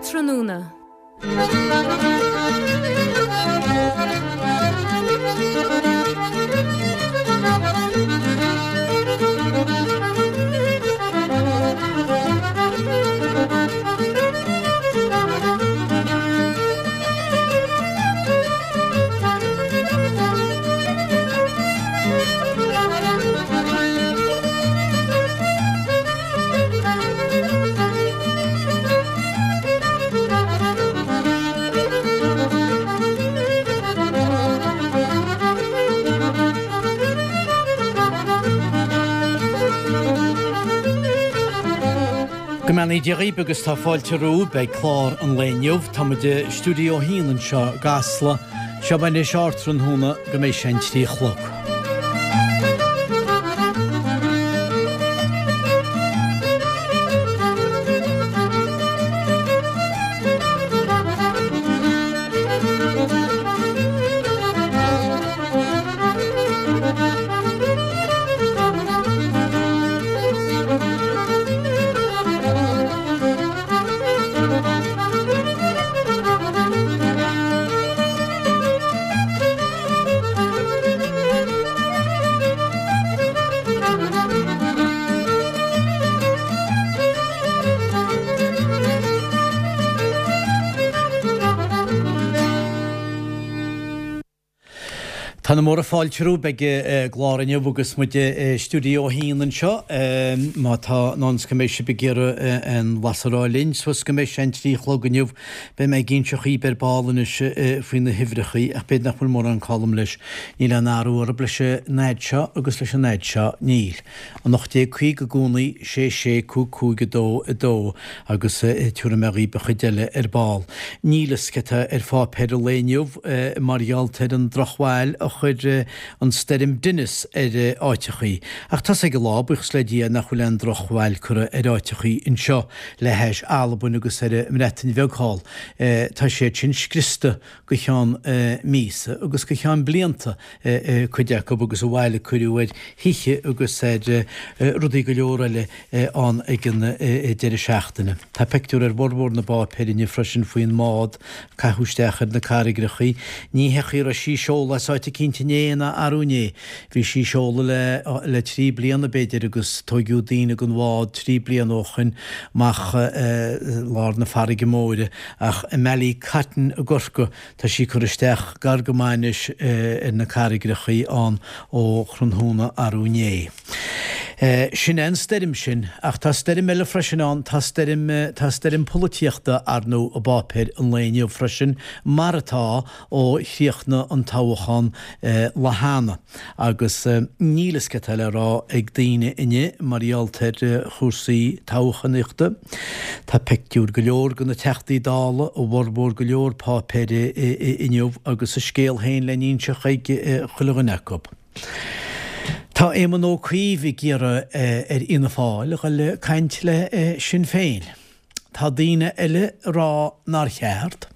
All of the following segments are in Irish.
Ardtráthnóna. Go mbeannaí Dia dhaoibh agus tá fáilte romhaibh ag clár an lae inniu. Tá muid i Stiúideo 1 anseo i gCasla. Seo anois Ardtráthnóna go mbeidh sé an 3 a chlog. Tá na móra fáilte romhaibh ag an gclár inniu agus muid i Stiúideo 1 anseo. Má tá in ann is go mbeidh sibh ag iarraidh aon bhlas a rá linn suas go mbeidh sé an 3 a chlog inniu, Beidh mé ag inseacht dhaoibh ar ball anois faoi na huimhreachaí, ach b'fhéidir nach bhfuil mórán colm leis. Níl aon athrú orthu leis an fhaid seo agus leis an fhaid seo, níl. 1850 i gcónaí, 6 6 5 5 2 2, agus tabharfaidh mé dhaoibh an chuid eile ar ball. Níl fhios cé tá ar pháipéir an lae inniu mar gheall ar an drochbhail a chuir an stoirm Dennis ar áiteachaí. Ach tá's ag an lá, buíochas le Dia, nach bhfuil aon drochbhail curtha ar áiteachaí anseo. le hais Albain agus ar an mBreatain Bheag thall. Tá siad sin scriosta go ceann míosa agus go ceann blianta cuid acu agus an bhail a cuireadh ar thithe agus ar rudaí go leor eile ann ag an deireadh seachtaine. Tá pictiúr ar bhformhór na bpáipéar inniu freisin faoin mbád a caitheadh isteach ar na carraigreachaí. Ní hé chaoi a raibh sí seolta as áit eicínt inné ná arú inné. Bhí sí seolta le 3 bliana b'fhéidir agus tóigeadh daoine den bhád 3 bliana ó shoin amach lár na farraige móire ach i mBallycotton i gCorcaigh tá sí curtha isteach gar go maith anois ar na carraigreachaí ann ó thráthnóna arú inné. Sin é an stoirm sin ach tá stoirm eile freisin ann, tá stoirm, tá stoirm polaitíochta ar ndóigh i bpáipéir an lae inniu freisin mar atá ó chríochnaigh an toghchán lá cheana agus níl fhios cé tá le rá ag daoine inniu mar gheall ar chúrsaí toghchánaíochta. Tá pictiúir go leor de na Teachtaí Dála i bhformhór go leor páipéir inniu agus a scéal féin le n-inseacht ag chuile dhuine acu. Tá Éamon Ó Cuív ag iarraidh ar Fhianna Fáil a dhul ag caint le Sinn Féin. Tá daoine eile ag rá nár cheart.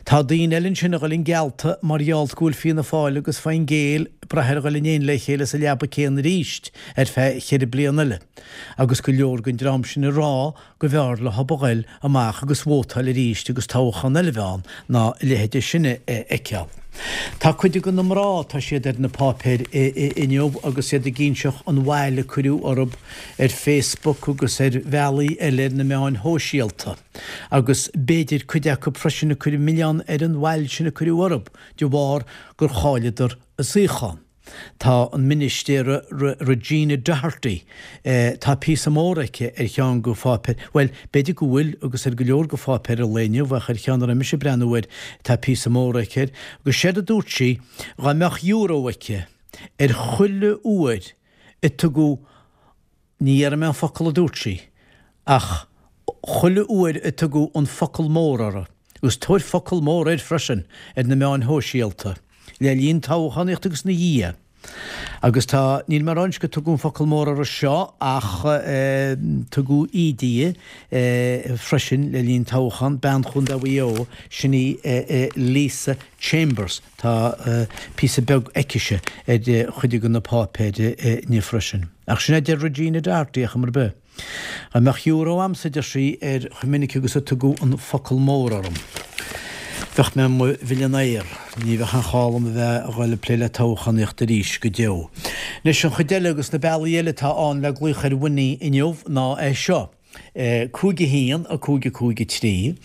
Tá daoine eile ansin a dhul geallta mar gheall go bhfuil Fianna Fáil agus Fine Gael ag brath ar dhul in éindí le chéile sa leaba céanna arís ar feadh cheithre bliana eile. Agus go leor den dream sin ag rá go mb'fhearr leo a ghoil amach agus vótáil arís agus toghchán eile a bheith ann ná a leithéide sin a fheiceáil. Tá cuid de na mná, tá siad ar na páipéir inniu agus iad ag inseacht an bhail a cuireadh orthu ar Facebook agus ar bhealaí eile ar na meáin shóisialta, agus b'fhéidir cuid acu freisin ag cur an milleán ar an bhail sin a cuireadh orthu de bharr gur chailleadar a suíochán. Tá an ministéara Regina Doherty, tá píosa mór aici ar cheann de pháipéir, bhuel, b'fhéidir go bhfuil agus ar go leor de pháipéir an lae inniu ach ar cheann a raibh mise ag breathnú air tá píosa mór aici air, agus séard a dúirt sí, dhá mbeadh euro aici ar chuile uair a tugadh, ní dhéarfaidh mé an focal a dúirt sí, ach chuile uair a tugadh an focal mór orthu, agus tabhair focal mór air freisin ar na meáin shóisialta, le linn toghchánaíochta agus ina dhiaidh. Agus tá, níl mé ag rá anois go tugadh an focal mór orthu seo ach tugadh íde di freisin le linn toghchán, bean Chontae Mhaigh Eo, sin í Lisa Chambers. Tá píosa beag aicise ar chuid de na páipéir inniu freisin. Ach sin é a deir Regina Doherty, ar chuma ar bith. Dá mbeadh euro a'msa, a deir sí, ar chomh minic agus a tugadh an focal mór orm, bheadh mé i mo mhillionaire. Ní bheadh aon chall dom a bheith a dhul ag plé le toghchánaíocht arís go deo. Anois, an chuid eile agus na bealaí eile atá ann le glaoch ar Winnie inniu ná é seo. 5 1 5 5 3,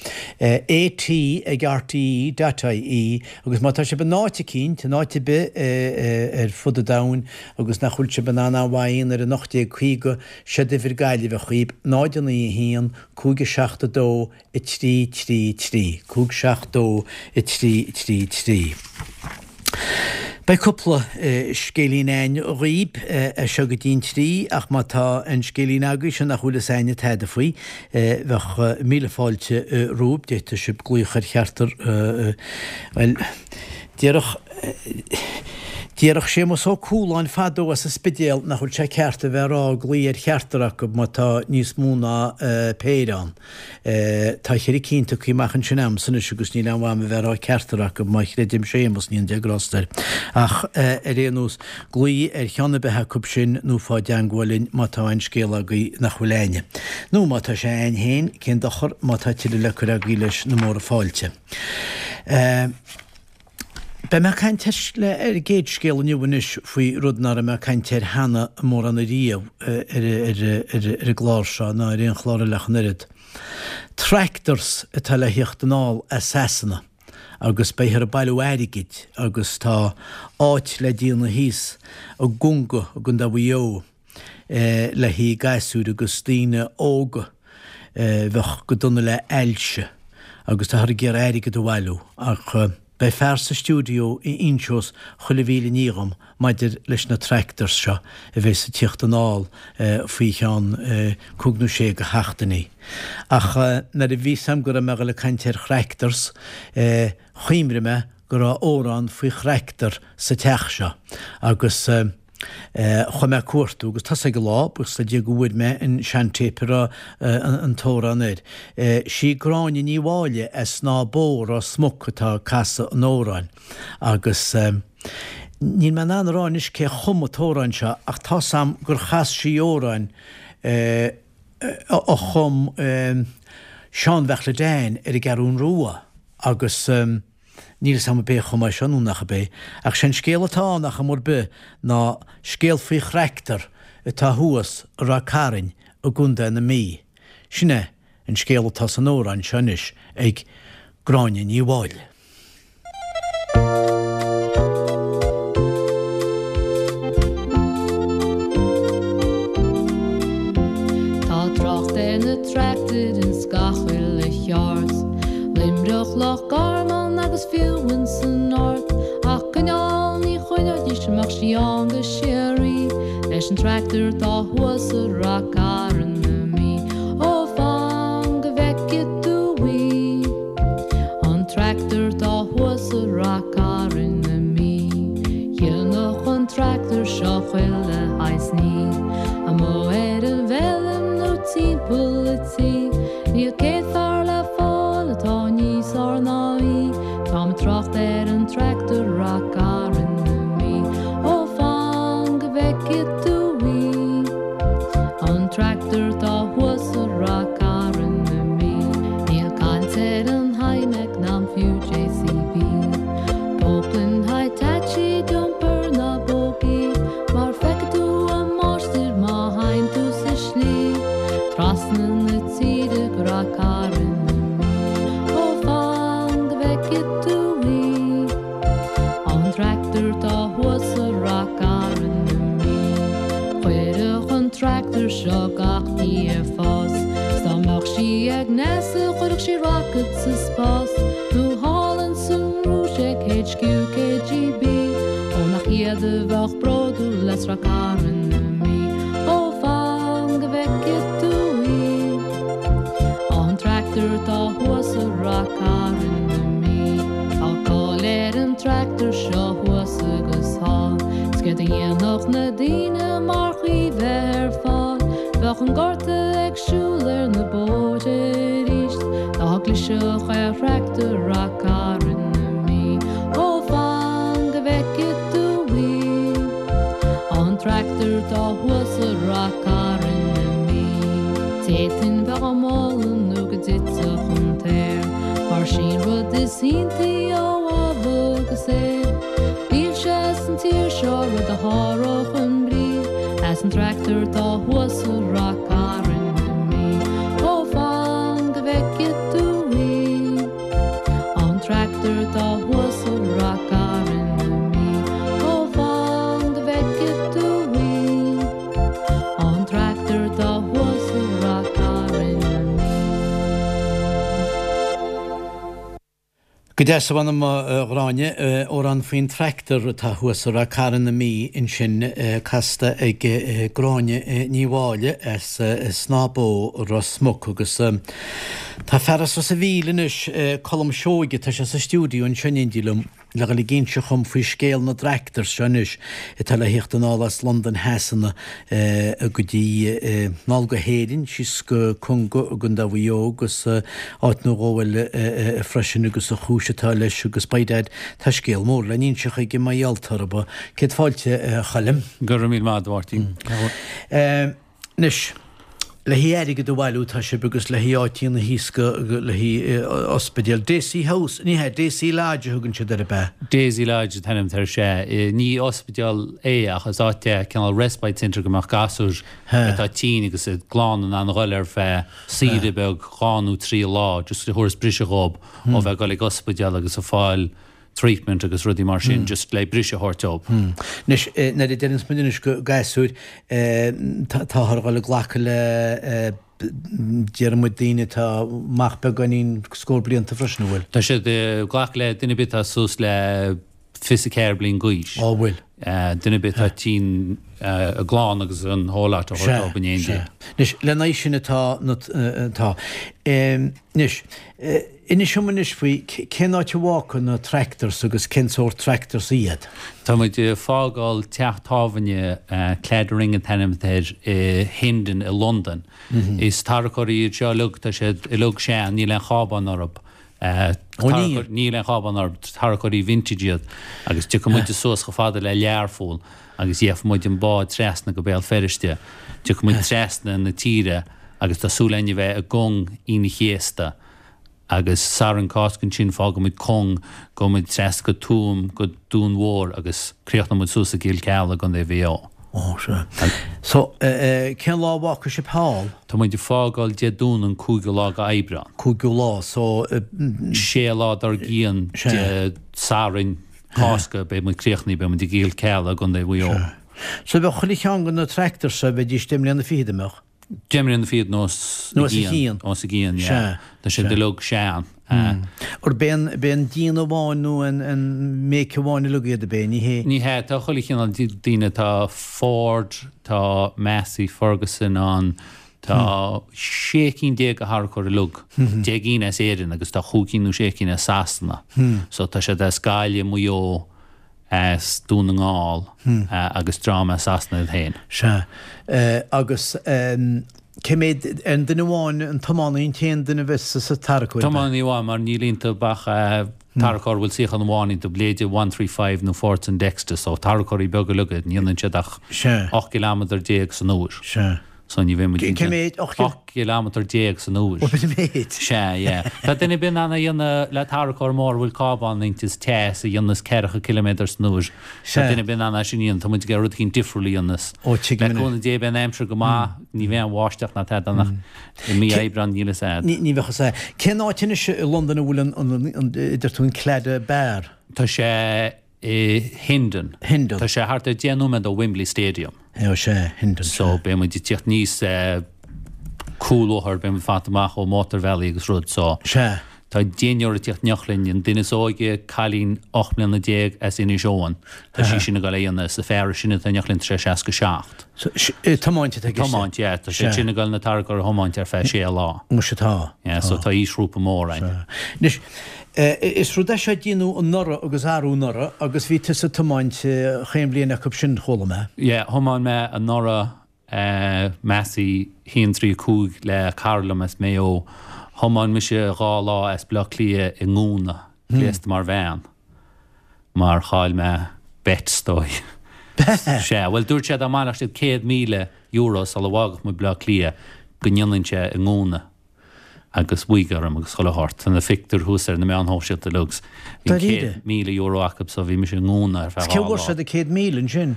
AT ag RTE dot IE agus má tá sibh in áit eicínt, in áit ar bith ar fud an domhain agus nach bhfuil sibh in ann an mhaidhm ar an 1850, Séard uimhir Gaillimhe dhaoib, 0 9 1 5 7 2 3 3 3, 5 7 2 3 3 3. Beidh cúpla scéilín a'ainn dhaoib as seo go dtí'n trí, ach má tá aon scéilín agaibhse nach bhfuil fhios a'inne tada faoi, bheadh míle fáilte romhaibh, d'fhéadfadh sibh glaoch ar cheachtar, bhuel, déarfadh, déarfadh Séamus Ó Cualáin fadó as an Spidéal nach bhfuil sé ceart a bheith ag rá glaoigh ar cheachtar acu má tá níos mó ná péire ann. Tá cheithre cinn tugtha amach ansin a'msa anois agus níl aon mhaith a'm a bheith ag rá ceachtar acu, má chreidim Séamus, ní aon grásta air. Ach ar aon nós, glaoigh ar cheann ar bith acu sin nó faigh i dteangmháil linn má tá aon scéal agaibh nach bhfuil a'inne. Nó má tá sé a'ainn féin, cén dochar, má tá tuilleadh le cur agaibh leis na móra fáilte. Beidh mé ag caint ar an gcéad scéal inniu anois faoi rud nach raibh mé ag caint air cheana mórán ariamh ar an gclár seo ná ar aon chlár eile ach an oiread. Tractors atá le thíocht anall as Sasana agus beifear ag bailiú airgid agus tá áit le déanamh thíos i gConga i gContae Mhaigh Eo le haghaidh gasúir agus daoine óga a bheadh go dona le ailse agus táthar ag iarraidh airgead a bhailiú ach beidh fear sa stiúideo a inseos chuile mhíle ní dhom maidir leis na tractors seo a bheas ag tíocht anall faoi cheann cúig nó sé de sheachtainí. Ach nuair a bhí 'fhios a'm go raibh mé a dhul ag caint ar thractors chuimhnigh mé go raibh amhrán faoi thractor sa teach seo agus Chuaigh mé ag cuartú agus tá's ag an lá, buíochas le Dia go bhfuair mé an seantéip a raibh an t-amhrán air. Sí Gráinne Ní Mháille as Snáth Bó, Ros Muc atá ag casadh an amhráin agus níl mé in ann a rá anois cé chum an t-amhrán seo ach tá's a'm gur chas sí amhrán a chum Seán Bheartla Dan ar an gCeathrún Rua agus Níl 'fhios a'm ab é a chum é seo nó nach ab é, ach sé an scéal atá ann ar chuma ar bith ná scéal faoi thractor atá thuas i Ráth Cairn i gContae na Mí. Sin é an scéal atá san amhrán seo anois ag Gráinne Ní Mháille. Tá trácht ar na tractair ins gach uile cheard. Luimneach, Loch Garman agus fiú ins an Ard. Ach coinneáil ní choinneoidís a mbeadh sí ann go síoraí leis an tractor atá thuas i Rath Cairn na Mí. Ó fan go bhfeicfidh tú í. An tractor atá thuas i Rath Cairn na Mí. Dhéanfadh an tractor seo chuile shaghas ní. Amuigh ar an bhfeilm nó timpeall a' tí. Níl céad fear le fáil atá níos fearr ná í. Táim ag trácht ar an tractor Rath Cairn na Mí. Ó fan go bhfeicfidh tú í. An tractor atá thuas i Rath Cairn na Mí. Níl caint ar an Hymac ná fiú JCB. Poclain Hitachi dumper ná buggy. Mar feicfidh tú a máistir má théann tú sa slí trasna na tíre go Rath Cairn na Mí. Ó fan go bhfeicfidh tú í. An tractor atá thuas i Rath Cairn na Mí. Chuirfeadh an tractor seo gach ní ar fás. 'S dá mbeadh sí ag NASA chuirfeadh sí rocket sa spás. Nó thall ins an Rúis ag HQ KGB. Ó nach iad a bheadh bródúil as Rath Cairn na Mí. Ó fan go bhfeicfidh tú í. An tractor atá thuas i Rath Cairn na Mí. Tá cáil ar an tractor seo thuas agus thall. 'S céard a dhéanfadh na daoine marach í bheith ar fáil. Bheadh an gorta ag siúl ar na bóithre arís dá gclisfeadh ar thractor Rath Cairn na Mí. Ó fan go bhfeicfidh tú í. An tractor atá thuas i Rath Cairn na Mí. D'fhéadfainn bheith á moladh nó go dtitfeadh an t-aer, mar sí an rud is iontaí ó Ádhamh agus Éabha. Níl sé san tír seo rud a sháródh i mbrí a's an tractor atá thuas i Rath Cairn na Mí. Ó fan go bhfeice tú í, an tractor atá thuas i Rath Cairn na Mí. Ó fan go bhfeice tú í. An tractor atá thuas i Rath Cairn na Mí. Go deas a mh'anam a Ghráinne, amhrán faoin tractor atá thuas i Rath Cairn na Mí ansin casta ag Gráinne Ní Mháille as Snáth Bó, Ros Muc agus tá fear as Ros a' Mhíl anois, Colm Seoige, tá sé sa stiúideo anseo in éindí liom. le dhul ag inseacht dhom faoi scéal na dtractors seo anois atá le thíocht anall as Londain Shasana go dtí anall go hÉirinn, síos go Conga i gContae Mhaigh Eo agus áit nó dhó eile freisin agus an chúis atá leis agus by dad tá scéal mór le n-inseacht aige mar gheall orthu. Céad fáilte a Choilm. Go raibh míle maith agat a Mháirtín. Anois, le haghaidh airgead a bhailiú tá sibh agus le haghaidh áiteanna thíos go, le haghaidh ospidéal. Daisy House, ní hea, Daisy Lodge a thugann siad air, ab ea? Daisy Lodge an t-ainm atá air, sea. Ní ospidéal é ach is áit é, cineál respite centre go mbeadh gasúir atá tinn agus a gclann in ann a dhul ar feadh saoire beag dhá nó trí lá just a thabharfas briseadh dhób ó bheith ag dul ag ospidéal agus ag fáil treatment agus rudaí mar sin just le briseadh a thabhairt dóibh. Anois, nuair a deireanns muid anois go gasúir, táthar a dhul ag glacadh le déarfaidh muid daoine atá amach beagáinín scór blianta freisin, an bhfuil? Tá siad ag glacadh le duine ar bith atá suas le 24 bliain d'aois. Á bhfuil? Duine ar bith atá tinn, a gclann agus an whole lot a thabhairt dóibh in éindí. Sea, sea. Anois, lena aghaidh sin atá na, atá. Anois, Inis dom anois faoi cén áit a bhfágfaidh na tractors agus cén sórt tractors iad? Tá muid ag fágáil teach tábhairne, Claddering an t-ainm atá air, i Hendon i Londain. Is tarracóirí iad seo uilig, tá siad uilig sean, níl aon chábán orthu. Ó níl? Níl aon chábán orthu, tarracóirí vintage iad. Agus tiocfaidh muid suas chomh fada le Learpholl agus gheobhaidh muid an bád trasna go Béal Feirste. Tiocfaidh muid trasna na tíre agus tá súil againn a bheith i gCong Aoine an Chéasta agus Satharn Cásca ansin fágfaidh muid Cong, gabhfaidh muid trasna go Tuaim, go Dún Mhór agus críochnóidh muid suas i gCill Cealla i gContae Mhaigh Eo. Ó, sea. So, cén lá a bhfágfaidh sibh thall? Tá muid ag fágáil Dé Domhnaigh an cúigiú lá go Aibreán. Cúigiú lá, so. Sé lá dár gcionn Dé Sathairn Cásca beidh muid críochnaithe, beidh muid i gCill Cealla i gContae Mhaigh Eo. Sea. So bheadh chuile cheann de na tractors seo, bheidís deich mbliana fichead, an mbeadh? Deich mbliana fichead nó os a chionn. Os a gcionn, yeah. Tá siad uilig sean. Arb é an, b'é an déanamh amháin nó an, an make amháin uilig iad, ab é? Ní hé? Ní hea, tá chuile chineál daoine, tá Ford, tá Massey Ferguson ann, tá sé cinn de tharracóirí uilig, 10 gcinn as Éirinn agus tá chúig cinn nó sé cinn as Sasana. So tá siad as Gaillimh, Maigh Eo, as Dún na nGall agus dream as Sasana iad féin. Sea. Agus cé mhéad, an duine amháin, an tiománaí an t-aon duine a bheas sa tarracóir? Tiománaí amháin mar níl iontu ach tarracóir a bhfuil suíochán amháin iontu, b'fhéidir one three five nó Fordson Dexter, so tarracóirí beaga uilig iad, ní dhéanann siad ach 18 gcileámeadar san uair. Sea. So ní bheidh muid Cé mhéad? 18 gcileámeadar san uair. Ó, b'in an méid. Sea, yeah. Tá duine ar bith in ann é a dhéanamh le tarracóir mór a bhfuil cábán inti is teas a dhéanas ceathracha ciliméadar san uair. Sea. Tá duine ar bith in ann é sin a dhéanamh. Tá muid ag iarraidh rud eicínt difriúil a dhéanamh. Ó, tuigim Le cúnamh Dé beidh an aimsir go maith, ní bheidh an bháisteach ná tada ann ach i mí Aibreáin níl fhios a'd. Ní bheadh fhios a'd. Cén áit anois i Londain a bhfuil an, an, an, a deir tú an Claddagh Bar? Tá sé i Hendon. Hendon. Tá sé thart ar 10 nóiméad ó Wembley Stadium. Ó sea, Hendon. So beidh muid ag tíocht aníos cúlbhóthar, beidh muid fanta amach ó mótarbhealaí agus rud so. Sea. Tá deichniúr ag tíocht in éineacht linn, an duine is óige, cailín 18 mbliana as Inis Eoghain, tá sí sin ag dul é a dhéanamh, is an fear is sine atá in éineacht linn tá sé 67. So, tiomáint atá i gceist? Tiomáint, yeah, tá sé sin ag dul na tarracóir a thiomáint ar feadh sé lá. Muise tá. Yeah, so tá aoisghrúpa mór ann. Sea. Anois, Is rud é seo a déanadh anuraidh agus arú anuraidh agus bhí tusa ag tiomáint chaon bhliain acu sin, chuala mé. Yeah, thiomáin mé anuraidh Massey 135 le cara liom as Maigh Eo. Thiomáin mise dhá lá as Baile Átha Cliath i ngúna, gléasta mar bhean, mar chaill mé bet, is dóigh. Sea, bhuel dúirt sé dá mbaileodh siad €100,000 sula bhfágfadh muid Baile Átha Cliath. go ndéanfainnse i ngúna agus wig orm agus chuile shórt. Tá na pictiúir thuas ar na meáin shóisialta uilig agus bhí an €100,000 acu so bhí mise i ngúna ar feadh 2 lá. Cé bhfuair siad an 100,000 ansin?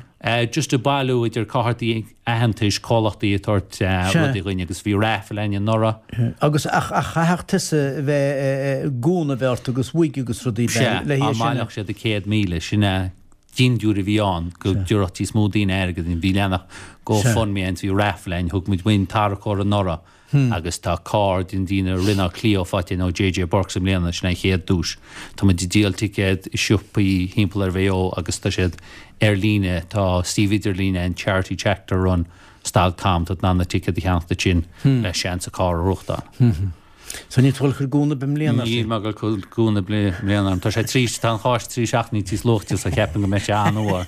Just ag bailiú idir cártaí aitheantais, comhlachtaí ag tabhairt rudaí dhuinn agus bhí raffle againn anuraidh. Agus ach chaithfeadh tusa bheith gúna a bheith ort agus wig agus rudaí le hé sin a. Sea, dá mbaileodh siad an 100,000, sin é dindiúir a bhí ann go dtabharfadh níos mó daoine airgead dúinn. Bhí leathanach GoFundMe ann, bhí raffle ann, thug muid uainn tarracóir anuraidh agus tá carr den déanamh Renault Clio faighte againn ó JJ Burkes i mbliana, sin an chéad duais. Tá muid ag díol ticéad i siopaí thimpeall ar Mhaigh Eo agus tá siad ar líne, tá suíomh idirlín ann Charity Tractor Run stad com, tá tú in ann na ticéid a cheannacht ansin le seans an carr a ghnóthachtáil. So níl tú ag dul ag cur gúna ar bith i mbliana? Níl mé ag dul ag cur gúna i mbliana. Tá sé trí, tá an Cháisc 3 seachtainí tíos luaite so cheapfainn go mbeidh sé an-fhuar.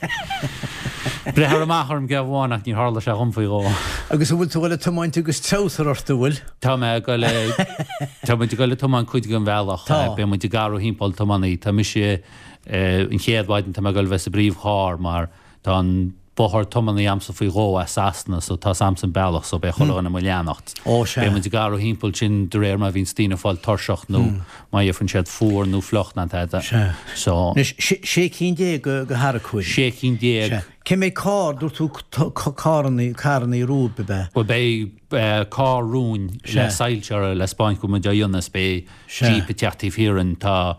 Breithear amach orm geábh amháin ach níor tharla sé dhom faoi dhó. Agus an bhfuil tú ag dul ag tiomáint agus treabhsar ort, an bhfuil? Tá mé ag dul ag, tá muid ag dul ag tiomáint cuid den bhealach. Tá. Beidh muid ag athrú thimpeall tiománaí. Tá mise, an chéad mhaidin tá mé ag dul a bheith sa bpríomhcharr mar Tá an bodhar tiománaí a'msa faoi dhó as Sasana so tá's a'msa an bealach so beidh chuile dhuine i mo leanacht. Ó sea. Beidh muid ag athrú thimpeall sin de réir mar a bhíonns daoine ag fáil tuirseach nó má gheibheann siad fuar nó fliuch ná tada. Sea. So. Anois, sé cinn de tharracóirí. Sé cinn. Sea. Cé mhéad carr, dúirt tú carrannaí, carrannaí romhaibh, ab ea? Bhuel beidh carr romhainn le soilse orthu le 'spáint go bhfuil muid á dhéanamh is beidh Jeep ag teacht taobh thiar dhínn. Tá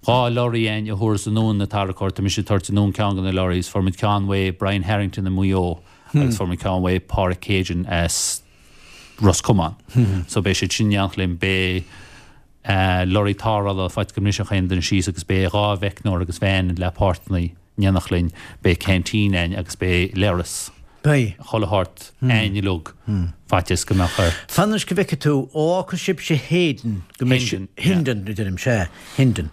2 lorry againn a thabharfas anonn na tarracóirí. Tá mise ag tabhairt anonn ceann de na lorries. Fuair muid ceann uaidh Brian Harrington i Maigh Eo agus fuair muid ceann uaidh Páraic Keegan as Ros Comáin. So beidh siad sin in éineacht linn. Beidh lorry tarrthála faitíos go mbrisfeadh aon duine síos agus beidh 2 mheicneoir agus veain le páirteanna in éineacht linn. Beidh canteen againn agus beidh leithreas. Beidh. Chuile shórt againn uilig, faitíos go mbeadh ort. Fan anois go bhfeicfidh tú, ó fhágfaidh sibhse Hayden, go mbeidh Hendon. Hendon, a deirim, sea, Hendon.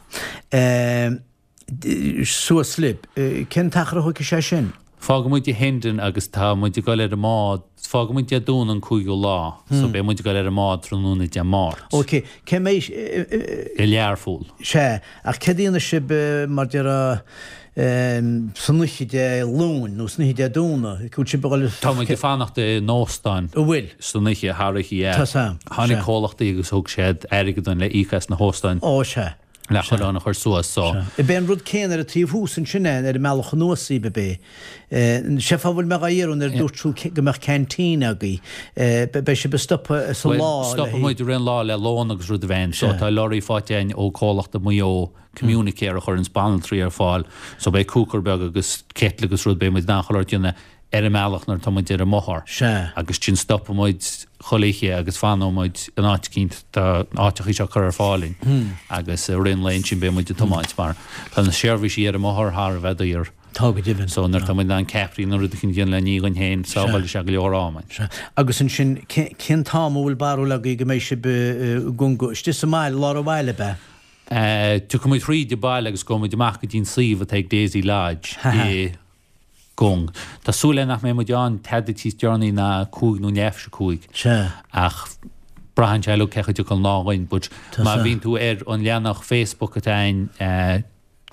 Suas libh. Cén t-achar a thógfaidh sé sin? Fágfaidh muid Hendon agus tá muid ag dul ar an mbád, fágfaidh muid Dé Domhnaigh an 5ú lá, so beidh muid ag dul ar an mbád tráthnóna Dé Máirt. Ok, cé mbeidh. I Learpholl. Sea, ach céard a dhéanfaidh sibh mar déarfá san oíche Dé Luain nó san oíche Dé Domhnaigh? Bhfuil sibh ag dul. Tá muid ag fanacht in óstán. An bhfuil? San oíche, thar oíche, yeah. Tá 's a'm. Tháinig comhlachtaí agus thug siad airgead dúinn le íoc as na hóstáin. Ó, sea. Le chuile dhuine a chur suas, so. Sea. Ab é an rud céanna ar an taobh thuas ansin é, ar an mbealach anuas daoibh, ab é? Sé fáth a bhfuil mé dhá iarraidh nuair a dúirt tú go mbeadh canteen agaibh, beidh sibh ag stopadh sa lá le. Stopfaidh muid i rith an lá le lón agus rud a bheith ann. So tá lorry faighte againn ó comhlacht i Maigh Eo, Communicare, a chuireanns banaltraí ar fáil. So beidh cooker beag agus kettle agus rud, beidh muid in ann chuile shórt a dhéanamh ar an mbealach nuair atá muid ar an mbothar. Sea. Agus ansin stopfaidh muid chuile oíche agus fanóidh muid in áit eicínt, tá áiteachaí seo curtha ar fáil dúinn agus i rith an lae ansin beidh muid ag tiomáint mar tá na seirbhísí ar an mbothar thar a bheith daor. Tá go deimhin. So nuair atá muid in ann ceapairí nó rud eicínt a dhéanamh le ní dhuinn féin, sábhálfaidh sé go leor ama. Sea. Agus ansin, cén t-am a bhfuil barúil agaibh go mbeidh sibh i gConga? Istigh sa mbaile, lár an bhaile, ab ea? Tiocfaidh muid thríd an baile agus gabhfaidh muid amach go dtí an suíomh atá ag Daisy Lodge i gCong. Tá súil againn nach mbeidh muid ann tada tíos deireanaí ná cúig nó leath théis a cúig. Sea. Ach braitheann sé uilig cé chaoi a dtiocfaidh an lá dhuinn. But má bhíonn tú ar an leathanach Facebook atá againn,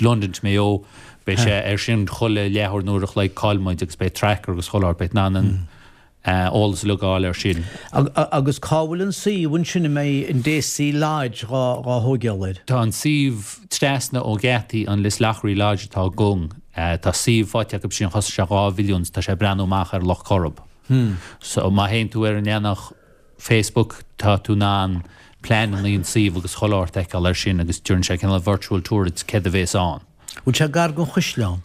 London to Mayo, beidh sé ar sin chuile leathuair nó uair a chloig cá bhfuil muid agus beidh tracker agus chuile shórt, beidh in ann an eolas uilig a fháil ar sin. Agus cá bhfuil an suíomh ansin a mbeidh an Daisy Lodge dhá thóigeáil air? Tá an suíomh trasna ó gheataí an Lisloughry Lodge atá i gCong. Tá suíomh faighte acu sin, chosain sé 2 mhilliún, tá sé ag breathnú amach ar Loch Coirib. So má théann tú ar an leathanach Facebook, tá tú in ann pleananna an suíomh agus chuile shórt a fheiceáil air sin agus déanann sé cineál virtual tour duit céard a bhéas ann. Bhfuil sé gar don chaisleán?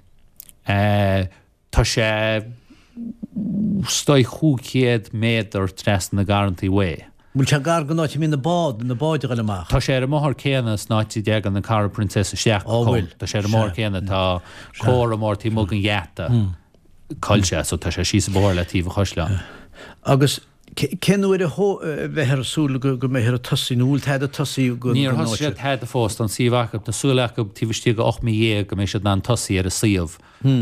Tá sé is dóigh 500 méadar trasna na garrantaí uaidh. Bhfuil sé gar don áit a mbíonn na bád, na báid a ghoil amach? Tá sé ar an mbóthar céanna san áit a dteagann an Carraig Princess isteach go Cong. Bhfuil? Tá sé ar an mbóthar céanna, tá comhartha mór taobh amuigh den gheata. Cá bhfuil sé, so tá sé síos an bóthar le taobh an chaisleáin. Agus cén uair a bheifear ag súil go mbeifear ag tosaí, nó bhfuil tada tosaí go Níor thosaigh siad tada fós, tá an suíomh acu, tá súil acu taobh istigh de 18 mí go mbeidh siad in ann tosaí ar an suíomh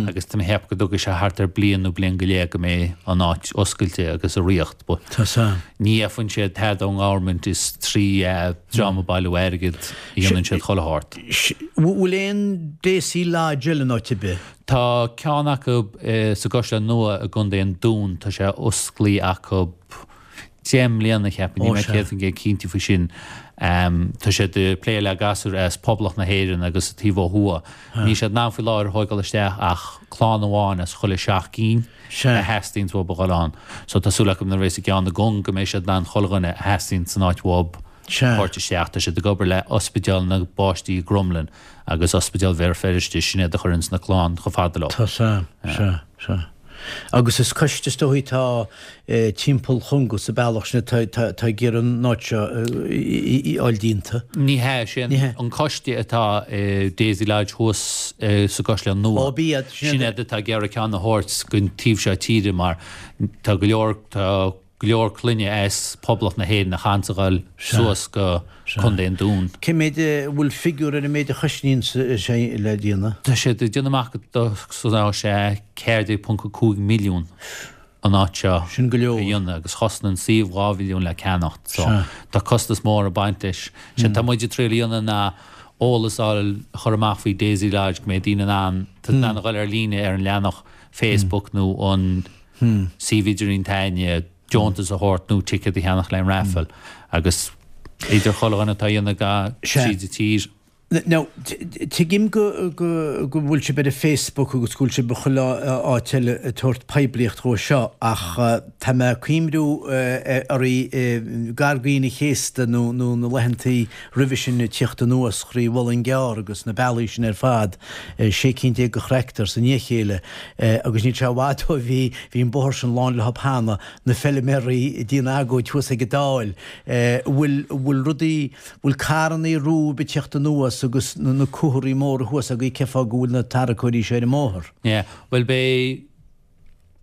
agus tá mé ag ceapadh go dtógfaidh sé thart ar bliain nó bliain go leith go mbeidh an áit oscailte agus i riocht but ní fhaigheann siad tada ón ngovernment is trí dream ag bailiú airgid a dhéanann siad chuile shórt. Bhfuil aon Daisy Lodge eile in áit ar bith? Tá ceann acu sa gCaisleán Nua i gContae an Dúin, tá sé osclaí acu. 10 mbliana, cheapfainn, níl mé 100% cinnte faoi sin. Tá siad ag plé le gasúir as Poblacht na hÉireann agus an taobh ó thuaidh. Níl siad in ann faoi láthair a thóigeáil isteach ach clann amháin as chuile sheacht gcinn a theastaíonns uathu a dhul ann. So tá súil acu nuair a bheas an ceann i gCong go mbeidh siad in ann chuile dhuine a theastaíonn san áit uathu a thabhairt isteach. Tá siad ag obair le Ospidéal na bPáistí i gCromghlinn agus Ospidéal Bhéal Feirste, sin iad a chuireanns na clann chomh fada leo. Tá sea, sea, sea. Agus is coiste is dóichí atá timpeall Chonga sa bealach sin atá ag iarraidh an áit seo a fháil déanta. Ní hea, sé an coiste atá i Daisy Lodge thuas sa gCaisleán Nua. Ó, b'iad, sin iad atá ag iarraidh ceann a thabhairt gon taobh seo tíre mar tá go leor, tá go leor clainne as Poblacht na hÉireann a chaitheanns a ghoil suas go Contae an Dúin. Cé mhéad, an bhfuil figiúr ar an méid a chosnaíonn sé le déanamh? Tá siad ag déanamh amach go gcosnóidh sé 14.5 milliún an áit seo Sin go leor. a dhéanamh agus chosnaigh an suíomh 2 mhilliún le ceannacht so tá costas mór ag baint leis. Séard tá muid ag triail a dhéanamh ná eolas a fháil a chur amach faoi Daisy Lodge go mbeidh daoine in ann in ann a dhul ar líne ar an leathanach Facebook nó an suíomh idirlín s'againne, deontas a thabhairt nó ticéad a cheannach le an raffle agus idir chuile dhuine atá a dhéanamh ga tríd an tír. Now, tuigim go go go bhfuil sibh ar an Facebook agus go bhfuil sibh i chuile áit eile ag tabhairt poiblíocht dhó seo ach tá mé ag cuimriú oraibh gar d'Aoine an Chéasta nó nó na laethantaí roimhe sin ag tíocht anuas thrí Mhuileann gCearr agus na bealaí sin ar fad, 16 cinn de thractors i ndiaidh a chéile agus níl sé i bhfad ó bhí bhí an bóthar sin lán leo cheana, na feilméaraí ag déanamh agóid thuas ag an Dáil. Bhfuil bhfuil rudaí bhfuil carrannaí romhaibh ag tíocht anuas agus na comharthaí móra thuas agaibh cén fáth go bhfuil na tarracóirí seo ar an mbóthar? Yeah, bhuel beidh.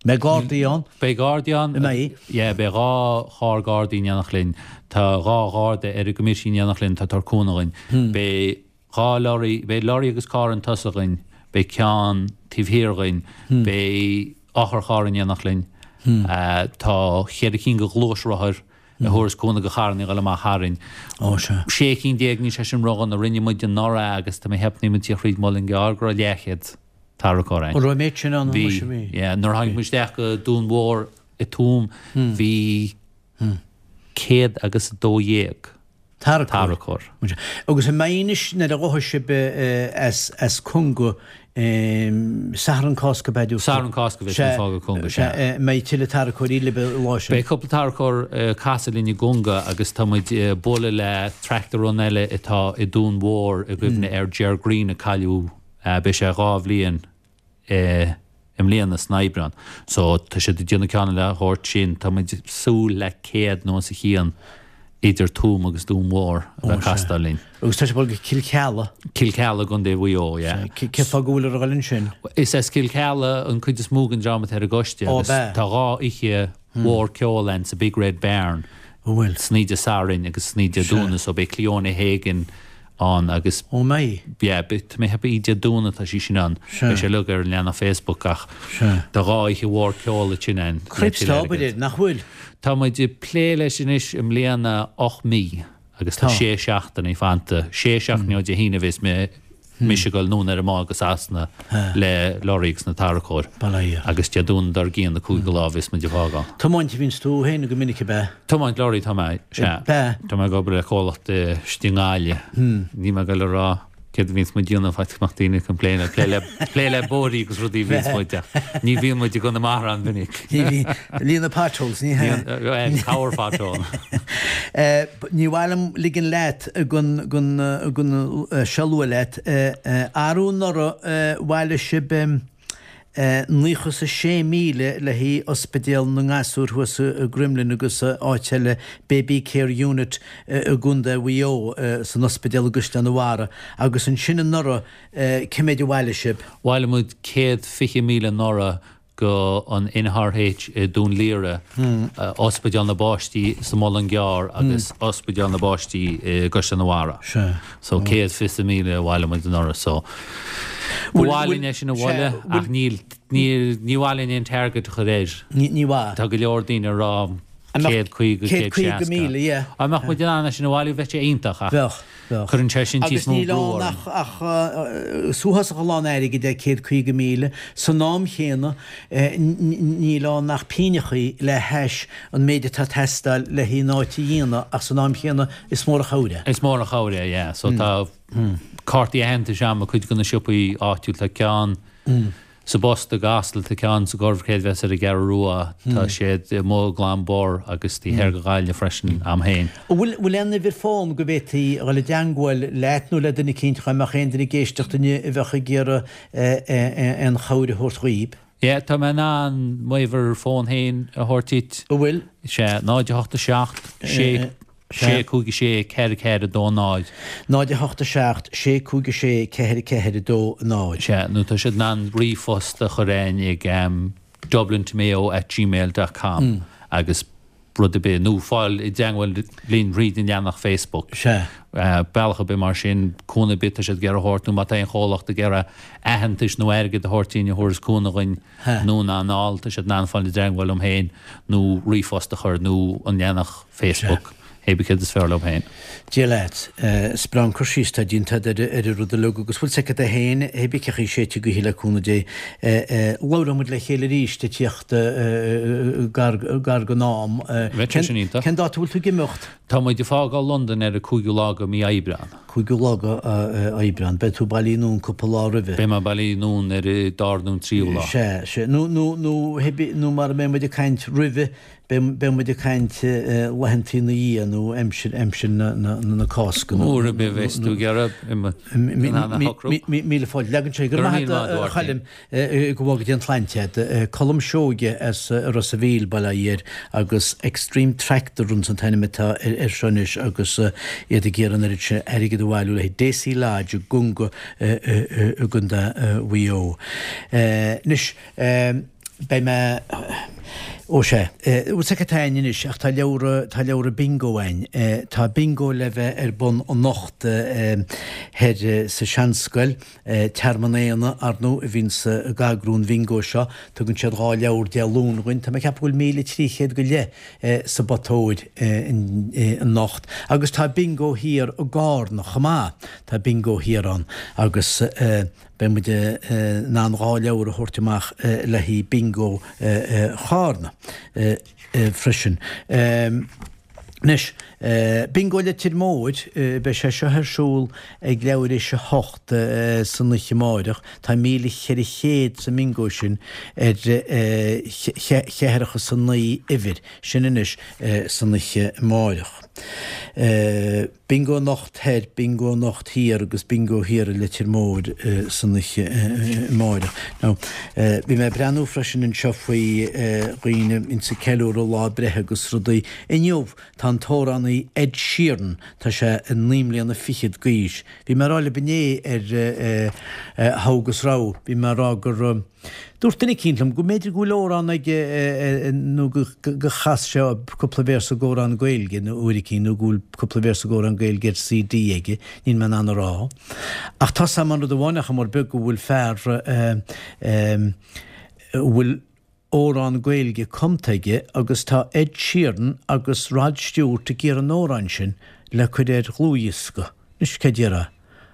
Beidh gardaí ann? Beidh gardaí ann. An mbeidh? Yeah, beidh 2 charr gardaí in éineacht linn. Tá 2 gharda ar an gcoimité in éineacht linn atá ag tabhairt cúnamh dhuinn. Beidh 2 lorry, beidh lorry agus carr chun tosaigh dhuinn, beidh ceann taobh thiar dhuinn, beidh otharcharr in éineacht linn. Tá cheithre cinn de ghluaisrothair a thabharfas cúnamh do charrannaí a dhul amach tharainn. Ó, sea. 16 cinn, níl sé sin ródhona. Rinne muid anuraidh agus tá mé ag ceapadh nuair a bhí muid thíos thríd Muileann gCearr go raibh leathchéad tarracóir ann. An raibh an méid sin ann? Bhí, yeah. Nuair a tháinig muid isteach go Dún Mhór i Tuaim bhí 112 tarracóir. Agus an mbeidh anois nuair a ghabhfaidh sibh as Conga, Satharn Cásca ab ea? Satharn Cásca a bheas muid ag fágáil Conga, sea. An mbeidh tuilleadh tarracóirí libh an lá sin? Beidh cúpla tarracóir ag casadh linn i gConga agus tá muid ag bualadh le tractor run eile atá i Dún Mhór i gcuimhne ar Ger Greene a cailleadh, beidh sé 2 bhliain i mbliana san Aibreán. So tá siad ag déanamh ceann le thabhairt sin. Tá muid ag súil le 100 nó os a chionn idir Tuaim agus Dún Mhór a bheith ag castáil linn. Agus tá sibh ag dul go Cill Chealla? Cill Chealla i gContae Mhaigh Eo, yeah. Cén fáth go bhfuil ag dul ansin? Is as Cill Chealla an cuid is mó den dream atá ar an gcoiste agus tá 2 oíche mhór ceoil ann sa Big Red Barn. An bhfuil? San oíche Dé Sathairn agus san oíche Dé Domhnaigh so beidh Cleona Hagan ann agus. Ó mbeidh? Yeah, beidh, tá mé ag ceapadh oíche Dé Domhnaigh atá sí sin ann. Sea. Beidh sé uilig ar an leathanach Facebook ach Sea. tá 2 oíche mhór ceoil ansin ann le Cripes tuilleadh tá obair airgid. air, nach bhfuil? Tá muid ag plé leis anois i mbliana 8 mí agus tá Tá. sé seachtainí fanta. Sé seachtainí ó Dé hAoine a bheas mé mise ag dul anonn ar an mbád go Sasana le lorry agus na tarracóir. Bail ó Dhia. Agus Dé Domhnaigh dár gcionn an cúigiú lá a bheas muid ag fágáil. Tiomáint a bhíonns tú féin go minic ab ea? Tiomáint lorry tá mé, sea. Ab ea? Tá mé ag obair le comhlacht istigh i nGaillimh. Níl mé ag dul a rá céard a bhíonns muid a dhéanamh faitíos go mbeadh daoine ag complain plé le plé le bóithrí agus rudaí a bhíonns muid ach ní bhíonn muid i gConamara an-mhinic. Ní bhíonn. Líonadh potholes, ní hea? Cabhair pothole. Ní mhaith liom ligean leat gan gan gan seo a lua leat. Arú anuraidh bhailigh sibh 96,000 le haghaidh Ospidéal na nGasúr thuas i gCroimlinn agus áit eile, Baby Care Unit i gContae Mhaigh Eo, san ospidéal i gCaisleán an Bharraigh. Agus ansin anuraidh, cé méid a bhailigh sibh? Bhailigh muid 120,000 anuraidh go an NRH i Dún Laoghaire, Ospidéal na bPáistí sa Mhuileann gCearr agus Ospidéal na bPáistí i gCaisleán an Bharraigh. So 120,000 a bhailigh muid anuraidh. So ba mhaith linn é sin a bhualadh ach níl, níl, ní mhaith linn aon target a chur air. Ní mhaith. Tá go leor daoine ag rá. 150, 160. 150,000, yeah. Dá mbeadh muid in ann é sin a bhailiú bheadh sé iontach ach Bheadh, bheadh. cuireann sé sin Agus níos mó níl brú ann orainn. ach, ach is uafásach a lán airgid é 150,000. San am chéanna níl ann ach pínneachaí le hais an méid atá ag teastáil le haghaidh an áit a dhéanamh ach san am chéanna is mór an chabhair é. Is mór an chabhair é, yeah. So tá cártaí aitheantais a'm i cuid de na siopaí áitiúil, tá ceann Sa bPost i gCasla, tá ceann sa gCorr-Chreidmheas ar an gCeathrú Rua, tá siad amuigh i gClann Bor agus taobh thoir de Ghaillimh freisin, a'm féin. An bhfuil bhfuil aon uimhir fón go bhféadfaí a dhul i dteangmháil leat nó le duine eicínt dhá mbeadh aon duine ag éisteacht inniu a bheadh ag iarraidh aon chabhair a thabhairt dhaoib? Yeah, tá mé in ann m'uimhir fón féin a thabhairt duit. An bhfuil? Sea, 0 8 7 6 6 5 6 4 4 2 0. 0 8 7 6 5 6 4 4 2 0. Sea, nó tá siad in ann ríomhphost a chur a'inn ag dublintomayo at gmail dot com agus rud ar bith, nó fáil i dteangmháil linn thríd an leathanach Facebook. Sea. Bealach ar bith mar sin, cúnamh ar bith tá siad ag iarraidh a thabhairt, nó má tá aon chomhlacht ag iarraidh aitheantais nó airgead a thabhairt dúinn a thabharfas cúnamh dhuinn anonn ná anall, tá siad in ann fáil i dteangmháil liom féin nó ríomhphost a chur nó an leathanach Facebook, hé bith céard is fearr leo féin. Dia leat. Is breá an cur síos atá déanta agat ar an rud uilig agus bhfuil 's agat é féin, hé bith cén chaoi séidte gaoithe le cúnamh Dé. Labhróidh muid le chéile arís ag tíocht gar gar don am. Bheadh sé sin iontach. Cén dáta a bhfuil tú ag imeacht? Tá muid ag fágáil Londain ar an 5ú lá de mí Aibreán. 5ú lá de Aibreán. Beidh tú bailithe anonn cúpla lá roimhe. Beidh mé bailithe anonn ar an dara nó an tríú lá. Sea, sea. Nó, nó, nó, nó mara mbeidh muid ag caint roimhe, beidh, beidh muid ag caint laethantaí ina dhiaidh nó aimsir, aimsir na, na, na Cásca. nó, Uair ar bith a bheas tú ag iarraidh, in ann a shocrú. Míle fáilte. Leagann sé. Go raibh maith agat, a Choilm. Go bhfága Dia an tsláinte agat. Colm Seoige as Ros a' Mhíl, Baile Átha Fhirdh, agus Extreme Tractor Runs an t-ainm atá air seo anois agus iad ag iarraidh an oiread sin airgid a bhailiú le haghaidh Deasy Lodge i gConga i gContae Mhaigh Eo. Anois, beidh mé, ó sea, bhfuil 's agat cad tá a'inn anois ach tá leabhra, tá leabhra bingo a'inn. Tá bingo le bheith ar bun anocht thoir sa Seanscoil. Tearmann Éanna, ar ndóigh, a bhíonns ag eagrú an bhingo seo. Tugann siad 2 leabhar Dé Luain dhuinn. Tá mé ag ceapadh go bhfuil 1,300 go leith sa bpota óir anocht. Agus tá bingo thiar i gCárna chomh maith. Tá bingo thiar ann agus beidh muid in ann 2 leabhar a thabhairt amach le haghaidh bingo Chárna freisin. Anois, Bingo Leitir Móir, beidh sé seo ar siúl ag leathuair tar éis a 8 san oíche amáireach. Tá 1,400 sa mbingo sin ar cheathracha is a naoi uimhir. Sin anois san oíche amáireach. Bingo anocht thoir, bingo anocht thiar agus bingo thiar i Leitir Móir san oíche amáireach. Now, bhí mé ag breathnú freisin anseo faoi dhaoine a bhíonns ag ceiliúradh lá breithe agus rudaí. Inniu, tá an t-amhránaí Ed Sheeran, tá sé naoi mbliana fichead d'aois. Bhí mé ag rá libh inné ar Togha agus Rogha, bhí mé ag rá gur, Dúirt duine eicínt liom go mb'fhéidir go bhfuil amhrán aige nó go chas sé cúpla véarsa d'amhrán Gaeilge nó uair eicínt nó go bhfuil cúpla véarsa d'amhrán Gaeilge ar CD aige, níl mé in ann a rá. Ach tá 's a'm an rud amháin nach mór beag go bhfuil fear a bhfuil amhrán Gaeilge cumtha aige agus tá Ed Sheeran agus Rod Stewart ag iarraidh an amhráin sin le cur ar dhlúthdhiosca. Anois cé déarfá?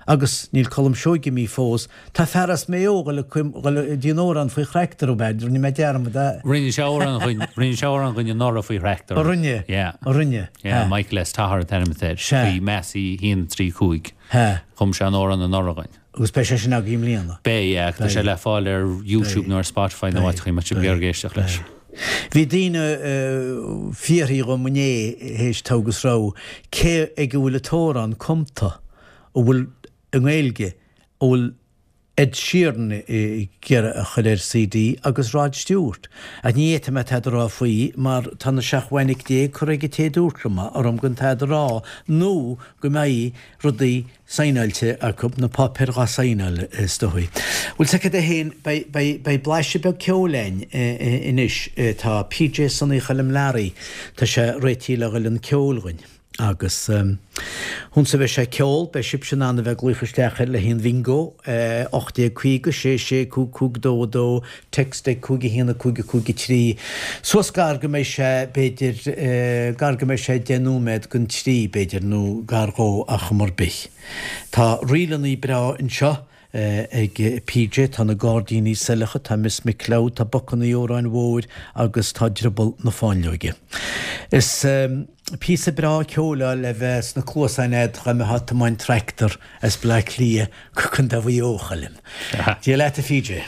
Agus níl Colm Seoige imithe fós. Tá fear as Maigh Eo ag dul a déanamh amhrán faoi thractor, ab ea? Rinne mé dearmad a. Rinne sé amhrán dhuinn, rinne sé amhrán dhuinn anuraidh faoi thractor. A rinne? Yeah. A rinne? Yeah, Michael S. Toher an t-ainm atá air. Sea. Faoi Massey 1, 3, 5. Sea. Chum sé an amhrán anuraidh dhuinn. Agus beidh sé sin agaibh i mbliana? Beidh, yeah. Tá sé le fáil ar YouTube nó ar Spotify nó áiteachaí má tá sibh ag iarraidh éisteacht leis. Bhí daoine ag fiafraí dhom inné théis togha agus rogha cé ag a bhfuil an t-amhrán cumta a bhfuil i nGaeilge a bhfuil Ed Sheeran ag iarraidh a chur ar CD agus Rod Stewart. Ach ní fhéadfaidh mé tada a rá faoi mar tá na seacht bhfainic déag curtha ag an té a dúirt liom orm gan tada a rá nó go mbeidh rudaí saighneáilte acu, na páipéir dhá saighneáil, is dóigh. Bhuel, 's agat é féin, beidh, beidh, beidh blaiseadh beag ceoil a'inn anois. Tá PJ Sonaí Choilm Learaí, tá sé réitithe le dhul chun ceoil dhuinn. Agus ionsa a bheidh sé ag ceol, beidh sibhse in ann a bheith ag glaoch isteach air le haghaidh an bhingo, 1850 6 6 5 5 2 2, text ag 5 1 5 5 3. Suas gar go mbeidh sé, b'fhéidir, gar go mbeidh sé 10 nóiméad don trí, b'fhéidir, nó gar dhó ach chuma ar bith. Tá ríleanna breá anseo. ag PJ, tá na Gairdíní Saileacha, tá Miss McCloud, tá Bocanna Óráin Mhóir agus tá Drioball na Fáinleoige. Is píosa breá ceoil é le bheith sna cluasáin a'd dá mbeifeá ag tiomáint tractor as Bleá Cliath go Contae Mhaigh Eo, a Choilm. Dia leat a PJ.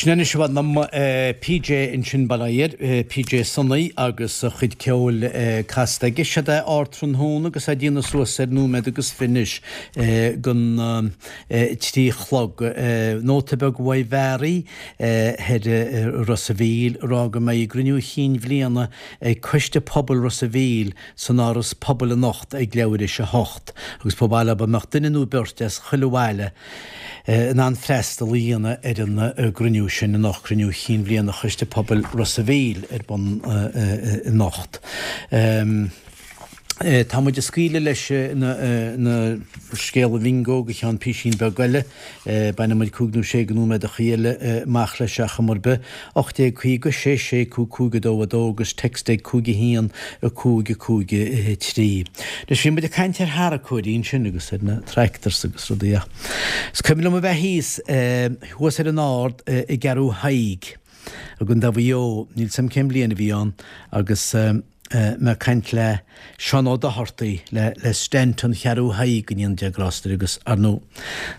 Sin anois i bhfad liom PJ ansin bail ó Dhia air, PJ Sonaí agus a chuid ceoil casta aige. Siod é ardtráthnóna agus é ag déanamh suas ar nóiméad agus fiche anois don 3 chlog. Nóta beag uaidh Mhary thoir i Ros a' Mhíl ag rá go mbeidh a gcruinniú chinn bhliana ag Coiste Pobail Ros a' Mhíl san Áras Pobail anocht ag leathuair théis a hocht agus ba mhaith leo dá mbeadh duine nó beirt as chuile bhaile in ann freastal a dhéanamh ar an gcruinniú sin anocht, Cruinniú Chinn Bhliana Choiste Pobail Ros a' Mhíl ar bun anocht. Tá muid ag scaoileadh leis na scéala bhingo go ceann písín beag eile. Bainfidh muid cúig nó sé de nóiméadachaí eile amach leis ar chuma ar bith. 1850 6 6 5 5 2 2 agus text ag 5 1 5 5 3. Anois bhí muid ag caint ar tharracóirí ansin agus ar na tractors agus rudaí ach is cuimhin liom a bheith thíos thuas ar an ard i gCeathrú Thaidhg i gContae Mhaigh Eo, níl 's a'm cén bhliain a bhí ann, agus mé ag caint le Seán Ó Dochartaigh, le le Stanton Cheathrú Thaidhg go ndéana Dia grásta air agus ar ndóigh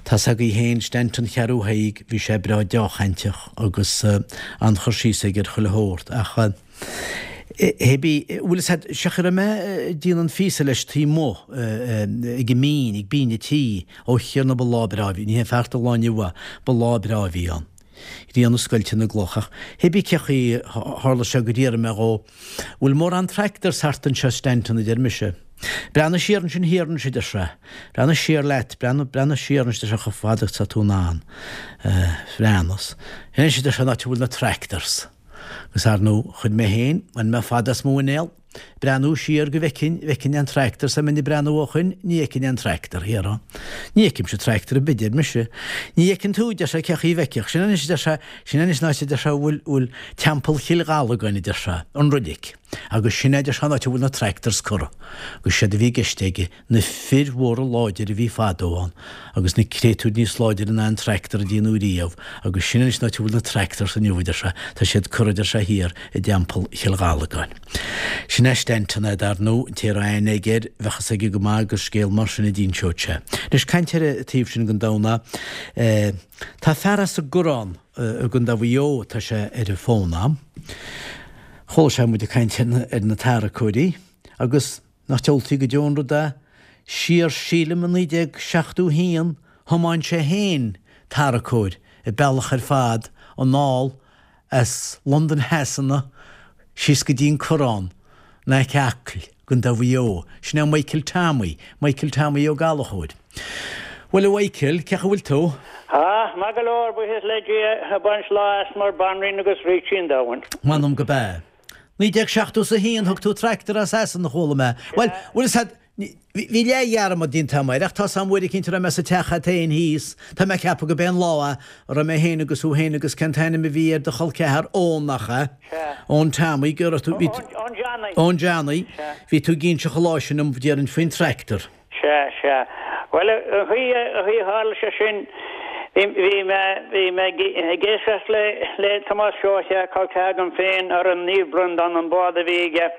tá's agaibh féin Stanton Cheathrú Thaidhg bhí sé breá deá-chainteach agus an-chur síos aige ar chuile shórt ach hé bí, bhfuil fhios a'd, sé chaoi a raibh mé ag déanamh an phíosa leis taobh amuigh ag an mbinn, ag binn an tí, ó Thiarna ba lá breá a bhí, ní hé feart an lá inniu é, ba lá breá a bhí ann. Grian ag scoilteadh na gcloch ach hé bí cé chaoi a tharla sé gur fhiafraigh mé dhó, bhfuil mórán tractors thart anseo Stanton a deir mise. Breathnaigh siar ansin thiar anois a deir sé. Breathnaigh siar leat, breathnaigh, breathnaigh siar anois a deir sé chomh fada agus atá tú in ann. Bhreathnas. Anois a deir sé an áit a bhfuil na tractors. Agus ar ndóigh, chuir mé féin, bhain mé fad as mo mhuinéal, breathnú siar go bhfeicfinn, bhfeicfinn an tractor, 's dá mbeinn ag breathnú ó shoin, ní fheicfinn an tractor thiar ann. Ní fheicimse tractor ar bith, deir mise. Ní fheiceann tú, deir sé, cé chaoi a bhfeicfeadh. Sin anois, a deir sé, sin anois an áit, a deir sé, a bhfuil, bhfuil Teampall Chill Ghallagáin, a deir sé, an roilig. Agus sin é, a deir sé, an áit a bhfuil na tractors curtha. Agus séard a bhí i gceist aige, na fir mhóra láidire a bhí fadó ann agus na créatúir níos láidire ná an tractor a déanadh riamh agus sin anois an áit a bhfuil na tractors inniu a deir sé, tá siad curtha a deir sé thiar i dTeampall Chill Ghallagáin. Sin é Stanton é dar ndóigh, an té a raibh aithne aige air, bheadh fhios aige go maith gur scéal mar sin a d'inseodh sé. Anois caint ar an taobh sin den domhan eh, tá fear as an gCoireán i gContae Mhaigh Eo, tá sé ar an bhfón a'm. Chuala sé muid ag caint ar na tarracóirí agus Nach diabhaltaí go deo an rud é? Siar sílim i 1971 thiomáin sé féin tarracóir an bealach ar fad anall as Londain Shasana síos go dtí an Coireán in aice Acaill, gContae Mhaigh Eo. Sin é Michael Tommy, Michael Tommy Ó Gallchóir. Bhuel a Mhichael, cén chaoi a bhfuil tú? Ah, maith go leor, buíochas le Dia, ag baint lá as mar banríon agus rící an domhain. M'anam go b'ea. 1971 thug tú tractor as Sasana, chuala mé. Bhuel, bhfuil fhios a'd, bhí leath-dhearmad déanta agam air, ach tá 'fhios a'm uair eicínt a raibh mé sa teach a'd féin thíos, tá mé ag ceapadh go b'é an lá é, a raibh mé féin agus thú féin agus cén t-ainm a bhí ar do chol ceathar, Eoin nach ea? Sea. Eoin Tommy, go raibh tú, bhí tú. Eoin Johnny. Eoin Johnny. Sea. Bhí tú ag inseacht an lá sin dom, déarfainn, faoin tractor. Sea, sea. Bhuel, an chaoi a tharla sé sin, bhí mé, bhí mé ag éisteacht le, le Tomás Seoighe, col ceathar agam féin, ar an Naomh Breandán, an bád a bhí aige,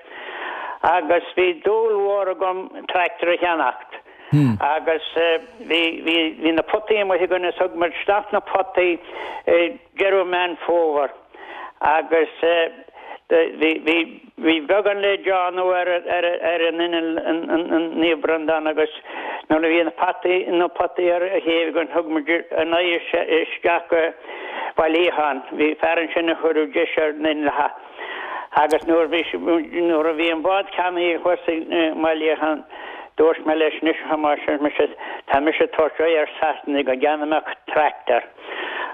agus bhí dúil mhór agam tractor a cheannacht. Agus bhí, bhí, bhí na potaí amuigh againn is thug muid isteach na potaí i deireadh Meán Fómhair. Agus bhí beagán le déanamh ar an inneall an Naomh Breandán agus nuair a bhí na potaí na potaí ar a chéibh againn thug muid a n-aghaidh isteach go Baile Liatháin. Bhí fear ansin a chuireadh deis ar na hinnealcha agus nuair bhí nuair a bhí an bád ceannaithe thuas i mBaile Liatháin dúirt mé leis anois a Thomáis ar mise tá mise ag tabhairt aghaidh ar Sasana go gceannóidh mé tractor.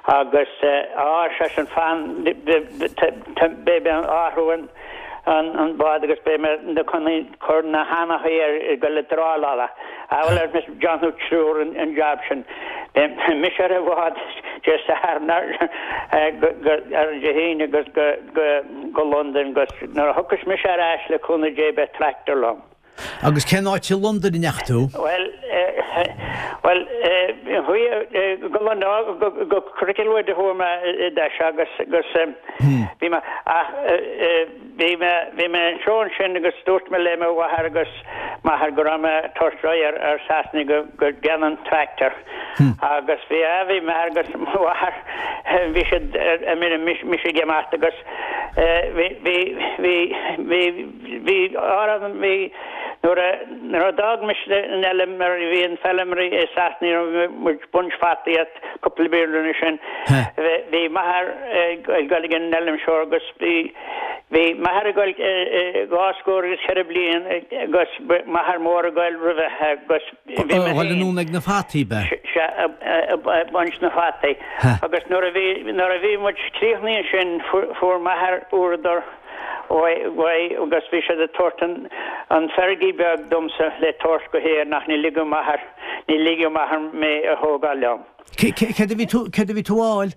Agus á, ar seisean, fan, beidh mé ag athrú an bád agus beidh mé chun cur na hanachaí air ag dul ag dráileáil. Á bhuel, ar mise, déanfaidh triúr an jab sin. Beidh mise ar an bhád Dé Sathairn ar Dé hAoine agus go Londain agus nuair a thiocfas mise ar ais le cúnamh Dé beidh tractor liom. Agus cén áit i Londain a ndeachaigh tú? Bhuel, bhuel, Chuaigh go Cricklewood a chuaigh mé i dtús agus agus bhí mé ach bhí mé bhí mé anseo ansin agus dúirt mé le mo mháthair agus m'athair go raibh mé ag tabhairt aghaidh ar ar Sasana go go gceannóinn tractor agus bhí a bhí m'athair agus mo mháthair bhí siad ar mire mise ag imeacht agus bhí bhí bhí bhí bhí árann bhí Nuair a nuair a d'fhág mise an fheilm mar bhí an feilm i Sasana ní raibh muid ag baint fataí as cúpla bliain roimhe sin bhí m'athair ag dul ag an fheilm seo agus bhí bhí m'athair ag dul dhá scór agus cheithre bliain agus m'athair mór ag dul roimhe agus bhí mé féin Dhul anonn ag na fataí ab ea? Sea ag baint na fataí agus nuair a bhí nuair a bhí muid críochnaithe ansin fuair m'athair úradar uaidh agus bhí siad ag tabhairt an an Fergie beag domsa le tabhairt go hÉirinn ach ní ligeadh m'athair, ní ligeadh m'athair mé a thógáil liom. Céard a bhí tú, céard a bhí tú a fháil?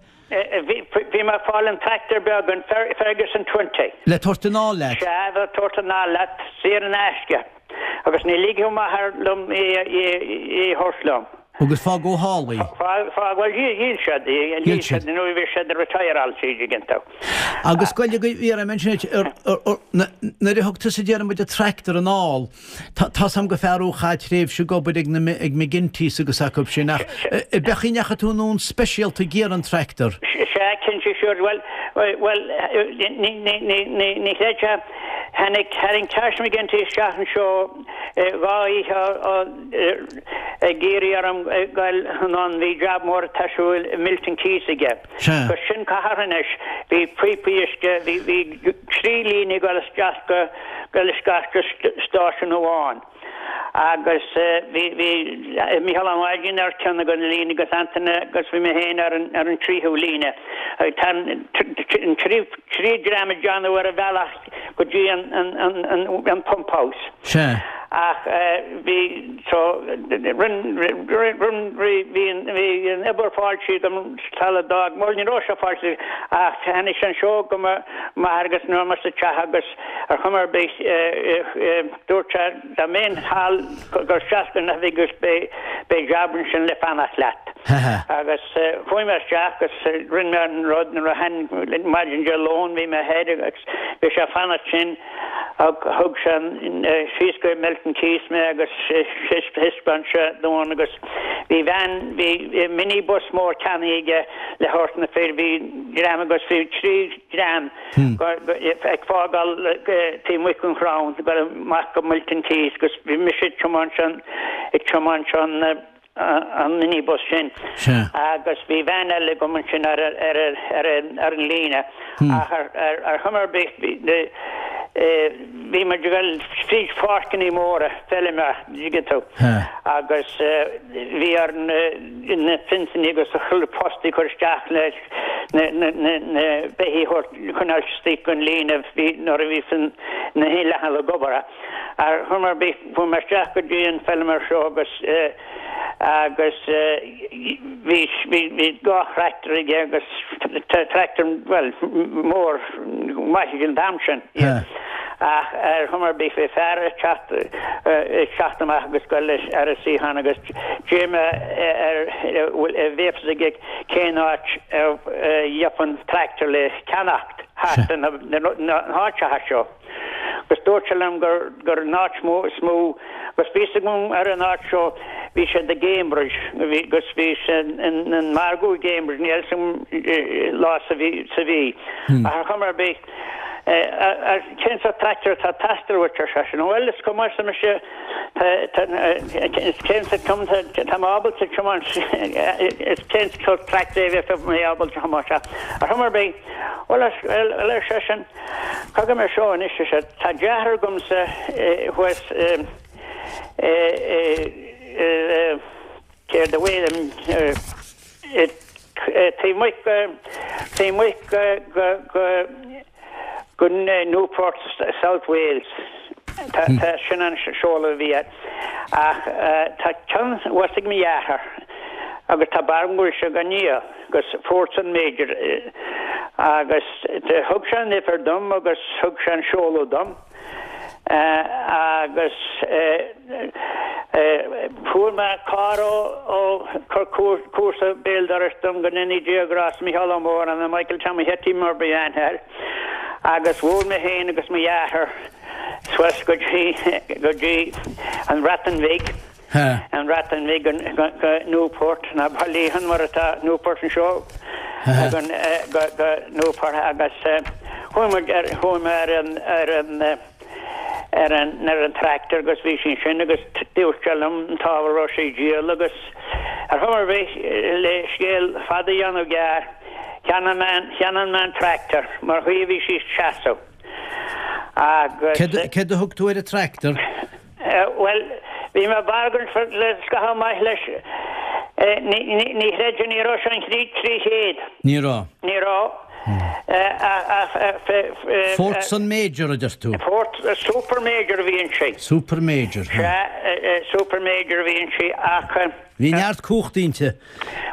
Bhí, bhí mé ag fáil an tractor beag, an Ferguson Twenty. Le tabhairt anall leat? Sea, le tabhairt anall leat, saor in aisce. Agus ní ligeadh m'athair liom é a thabhairt liom. Agus fágadh thall í. Fágadh, bhuel, dhíol siad í, dhíol siad nuair a bhí siad ag retireáil an dtuigeann tú. Agus goil go iarraidh ansin nuair a thug tusa déarfaidh muid an tractor anall, tá's a'm gur fear thú a chaith tréimhse ag obair ag na ag McGinty's agus acu sin ach ab é an chaoi a ndeachaigh tú anonn speisialta ag iarraidh an tractor? Sea, cinnte, sure, bhuel, bhuel, ní, ní, ní, ní, ní chreidfeá, Tháinig, tharraing Tosh McGinty isteach anseo dhá oíche ag iarraidh orm goil anonn, bhí jab mór ag siúl i Milton Keynes aige. Agus sin cathair anois, bhí píopaí uisce, bhí, bhí trí líne ag dul isteach go, goil isteach go stáisiún amháin. Agus bhí, bhí Mícheál Ó Máirtín ar ceann de na líne agus Antaine agus bhí mé féin ar an, ar an tríú líne. Tá an trí, trí dream ag déanamh ar an bhealach go dtí an, an, an, an, an pump house. Sea. Ach bhí, so, rinn, rinn, rinn, bhí an, bhí an obair fáilte agam sula d'fhág, bhuel ní raibh sé fáilte ach tháinig sé anseo go mo m'athair agus nuair sa teach agus ar chuma ar bith Dúirt sé dá mbeinn thall gur isteach go an oifig agus beidh jab ansin le fanacht leat. Agus chuaigh mé isteach agus rinne mé an rud nuair a tháinig maidin Dé Luain bhí mé thoir agus bhí sé ag fanacht sin thug sé síos go Milton Keynes mé agus thaispeáin sé dom agus bhí veain bhí minibus mór ceannaithe aige le thabhairt na fir bhí dream agus bhí trí dhream ag fágáil taobh amuigh den Chrown ag dul amach go Milton Keynes agus bhí mise ag tiomáint an ag tiomáint an an minibus sin agus bhí veain eile agam ansin ar ar ar ar an líne ach ar ar ar chuma ar bith bhí muid ag dul fríd pháirceanna móra feilme dtuigeann tú agus bhí ar na fionsanna agus chuile post a chur isteach le na beithígh a choinneáil istigh den líne nuair a bhí na leathan ag obair. Ar chuma ar bith, chuaigh mé isteach go dtí an feilméar seo agus agus bhí bhí dhá thractor aige agus tractor, bhuel, mór maith ag an t-am sin. Ach ar chuma ar bith, bhí fear ag teacht ag teacht amach agus goil ar a suíochán agus d'iarr mé air an bhfuil a fhios aige cén áit a gheofainn tractor le ceannacht thart na háiteacha seo. Agus dúirt sé liom gur gur an áit mó is mó agus bhí fhios agam ar an áit seo bhí siad i gCambridge bhí agus bhí sé in an margadh i gCambridge níl fhios agam lá sa mhí sa mhí. Ach ar chuma ar bith cén sórt tractor atá ag teastáil uait ar seisean. Bhuel is cuma arsa mise Cén sórt tá mé ábalta tiomáint is cén sórt tractor é a bheadh mé ábalta tiomáint ar chuma ar bith. Bhuel ar seisean, cogar mé seo anois ar sé, tá deartháir agamsa thuas i céard a bhfuil taobh amuigh taobh amuigh go go go Newport South Wales. Tá sin an seoladh a bhí air. Ach tá ceann thuas ag mo dheartháir agus tá barúil go bhfuil sé á dhíol agus fuair an major agus thug sé an uimhir dom agus thug sé an seoladh dom agus. Fuair mé carr ó ó chuir comharsa béal dorais dom go ndéanaí Dia grásta Micheál Ó Móráin nó Michael Tommy Hetty mar ba aithne air agus bhuail mé féin agus mo dheartháir suas go dtí go dtí an Bhreatain Bhig an Bhreatain Bhig go go Newport ná Ballyhan mar atá Newport anseo go go Newport agus chuaigh muid ar chuaigh mé ar an ar an ar an ar an tractor agus bhí sí ansin agus dúirt sé liom an t-ábhar a raibh sé ag díol agus ar chuma ar bith le scéal fada a dhéanamh gearr cheannaigh mé an cheannaigh mé an tractor mar chaoi a bhí sí ag seasamh agus. Céard céard a thug tú ar an tractor? Bhuel bhí mé ag bargain le scaitheamh maith leis ní ní ní chreidfeá ní raibh sé an 300. Ní raibh. Ní raibh. Fordson Major a deir tú? Ford Super Major a bhí inti. Super Major, ha. Sea, Super Major a bhí inti ach. Bhí neart cumhachta inti.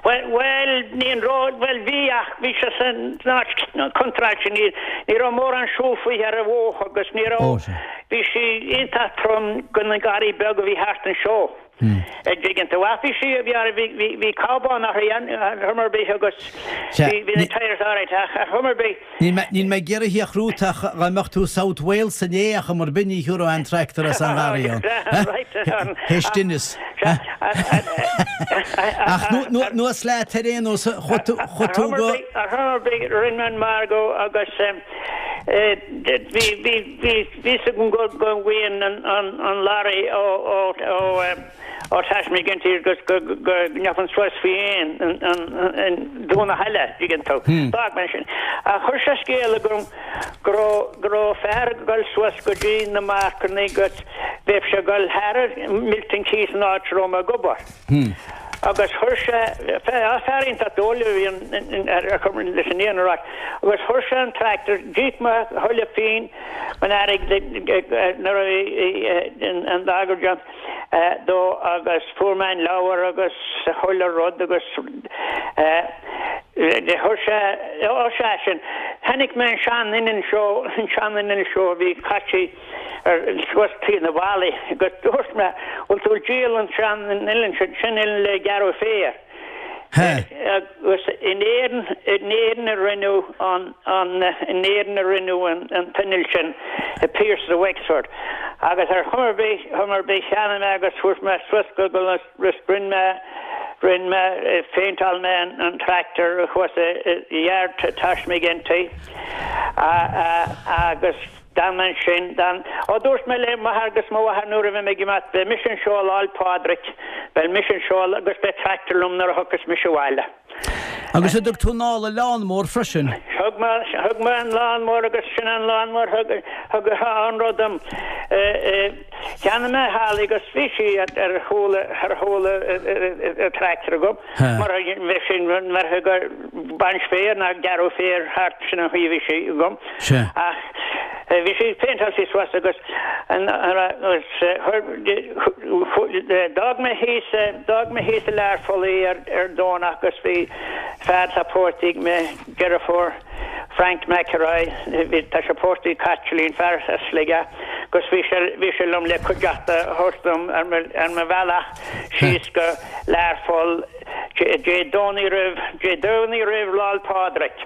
Bhuel, bhuel, ní an raibh, bhuel bhí ach bhí sé san áit contráilte, ní, ní raibh mórán siúl fúithi ar an bhóthar agus ní raibh, bhí sí iontach trom do na garraí beaga a bhí thart anseo. An dtuigeann tú. Ach bhí sí, bhí, bhí, bhí, bhí cábán uirthi ar chuma ar bith agus bhí, bhí na tyres alright ach ar chuma ar bith. Níl mé, níl mé ag iarraidh a chrút ach dá mbeadh tú South Wales inné ar chuma ar bith ní thiúrfá aon tractor as an ngarraí ann. Théis tinneas. Ach nuas leat ar aon nós, chuaigh tú, chuaigh tú go. Ar chuma ar bith, rinne mé an margadh agus bhí, bhí, Bhí fhios agam go bhfuigheann an lorry ó ó Tash McGinty agus go ngeobhainn suas faoi aon an Domhnach eile, dtuigeann tú. D'fhág mé sin. Ach chuir sé scéala chugam go raibh go raibh fear ag dul suas go dtí na marcanna agus bheadh sé ag dul thar Milton Keynes an áit a raibh mé ag obair. Agus chuir sé, fear iontach dóigh a bhí ar leis an fhírinne a rá, agus chuir sé an tractor, d'íoc mé a chuile phingin den airgead nuair a bhí an margadh déanta dó agus fuair mé an leabhar agus chuile rud agus chuir sé, ó sea sin, chonaic mé an sean-inneall seo, an sean-inneall seo a bhí caite ar suas taobh na bhfallaí agus dúirt mé, bhfuil tú ag díol an sean inneall sin, sin inneall le gearradh féir. Agus in Éirinn, in Éirinn a rinneadh an, an, in Éirinn a rinneadh an, an t-inneall sin, i Pearse of Wexford. Agus ar chuma ar bith, chuma ar bith cheannaigh mé agus fuair mé suas go, go, agus rinne mé, rinne mé, phéinteáil mé an, an tractor thuas i, i yard Tosh McGinty. Agus. D'fhan mé ansin, d'fhan. Ó, dúirt mé le m'athair agus mo mháthair nuair a bheidh mé ag imeacht, beidh mise anseo Lá 'le Pádraig, beidh mise anseo agus beidh tractor liom nuair a thiocfas mise abhaile. Agus an dtug tú anall an lawnmower freisin? Thug mé, thug mé an lawnmower agus sin an lawnmower thug, thug an rud dom. Cheannaigh mé thall í agus bhí sí ar chúl, ar chúl an tractor agam mar a bheadh sin, mar a bheadh baint féir ná gearradh féir thart, sin an chaoi a bhí sé agam. Ach bhí sé péinteáilte suas agus d'fhág mé thíos, d'fhág mé thíos i Learpholl í ar ar Domhnach agus bhí fear atá pósta ag mo dheirfiúr, Frank McElroy, bhí, tá sé pósta ag Caitlín, fear as Sligeach, agus bhí sé, bhí sé liom le cuideachta a thabhairt dom ar mo, ar mo bhealach síos go Learpholl. Dé Domhnaigh roimh, Dé Domhnaigh roimh Lá'l Pádraig.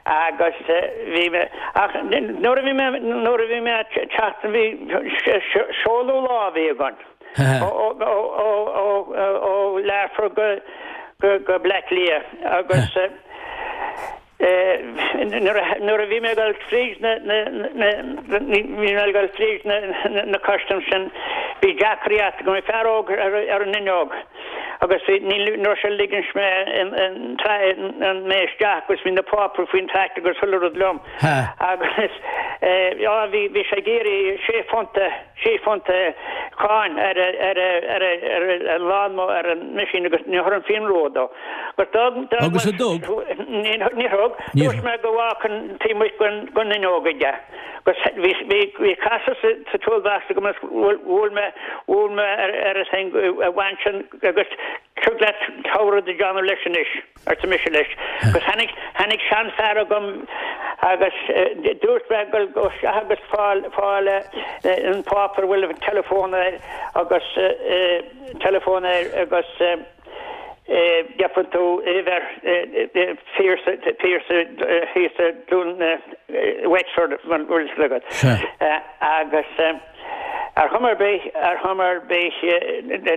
Agus bhí mé, ach nuair a bhí mé, nuair a bhí mé ag teacht, bhí seoladh lá a bhí againn. Ó, ó, ó, ó, ó Learpholl go, go, go Bleá Cliath agus Nuair a bhí mé ag dul fríd na, bhí mé ag dul fríd na custaim sin, bhí deacracht agam, bhí fear óg ar an fhuinneog agus bhí, ní raibh sé ag ligint mé mé isteach agus bhí na páipéir faoin tractor agus chuile rud liom agus bhí, bhí sé ag iarraidh sé phunt a, sé phunt cáin ar ar ar ar an lawnmower ar an machine agus ní chuir an phian ró dó. Agus d'fhág d'fhág Agus an dtug? Ní ní thug. Dúirt mé go bhfágfainn taobh amuigh den den fhuinneog aige. Agus bhí bhí bhí casadh sa sa toolbox agam agus bhuail bhuail mé bhuail mé ar ar an thing a bhain sin agus tig leat togha rud a dhéanamh leis anois, arsa mise leis. Agus tháinig tháinig seanfhear agam. Agus dúirt mé gabh isteach agus fáil fáil an páipéar a bhfuil an teileafón air agus teileafón air agus gheobhaidh tú uimhir Pearse Pearse thíos i Dún Wexford an bhfuil fhios agat. Agus. Ar chuma ar bith, ar chuma ar bith,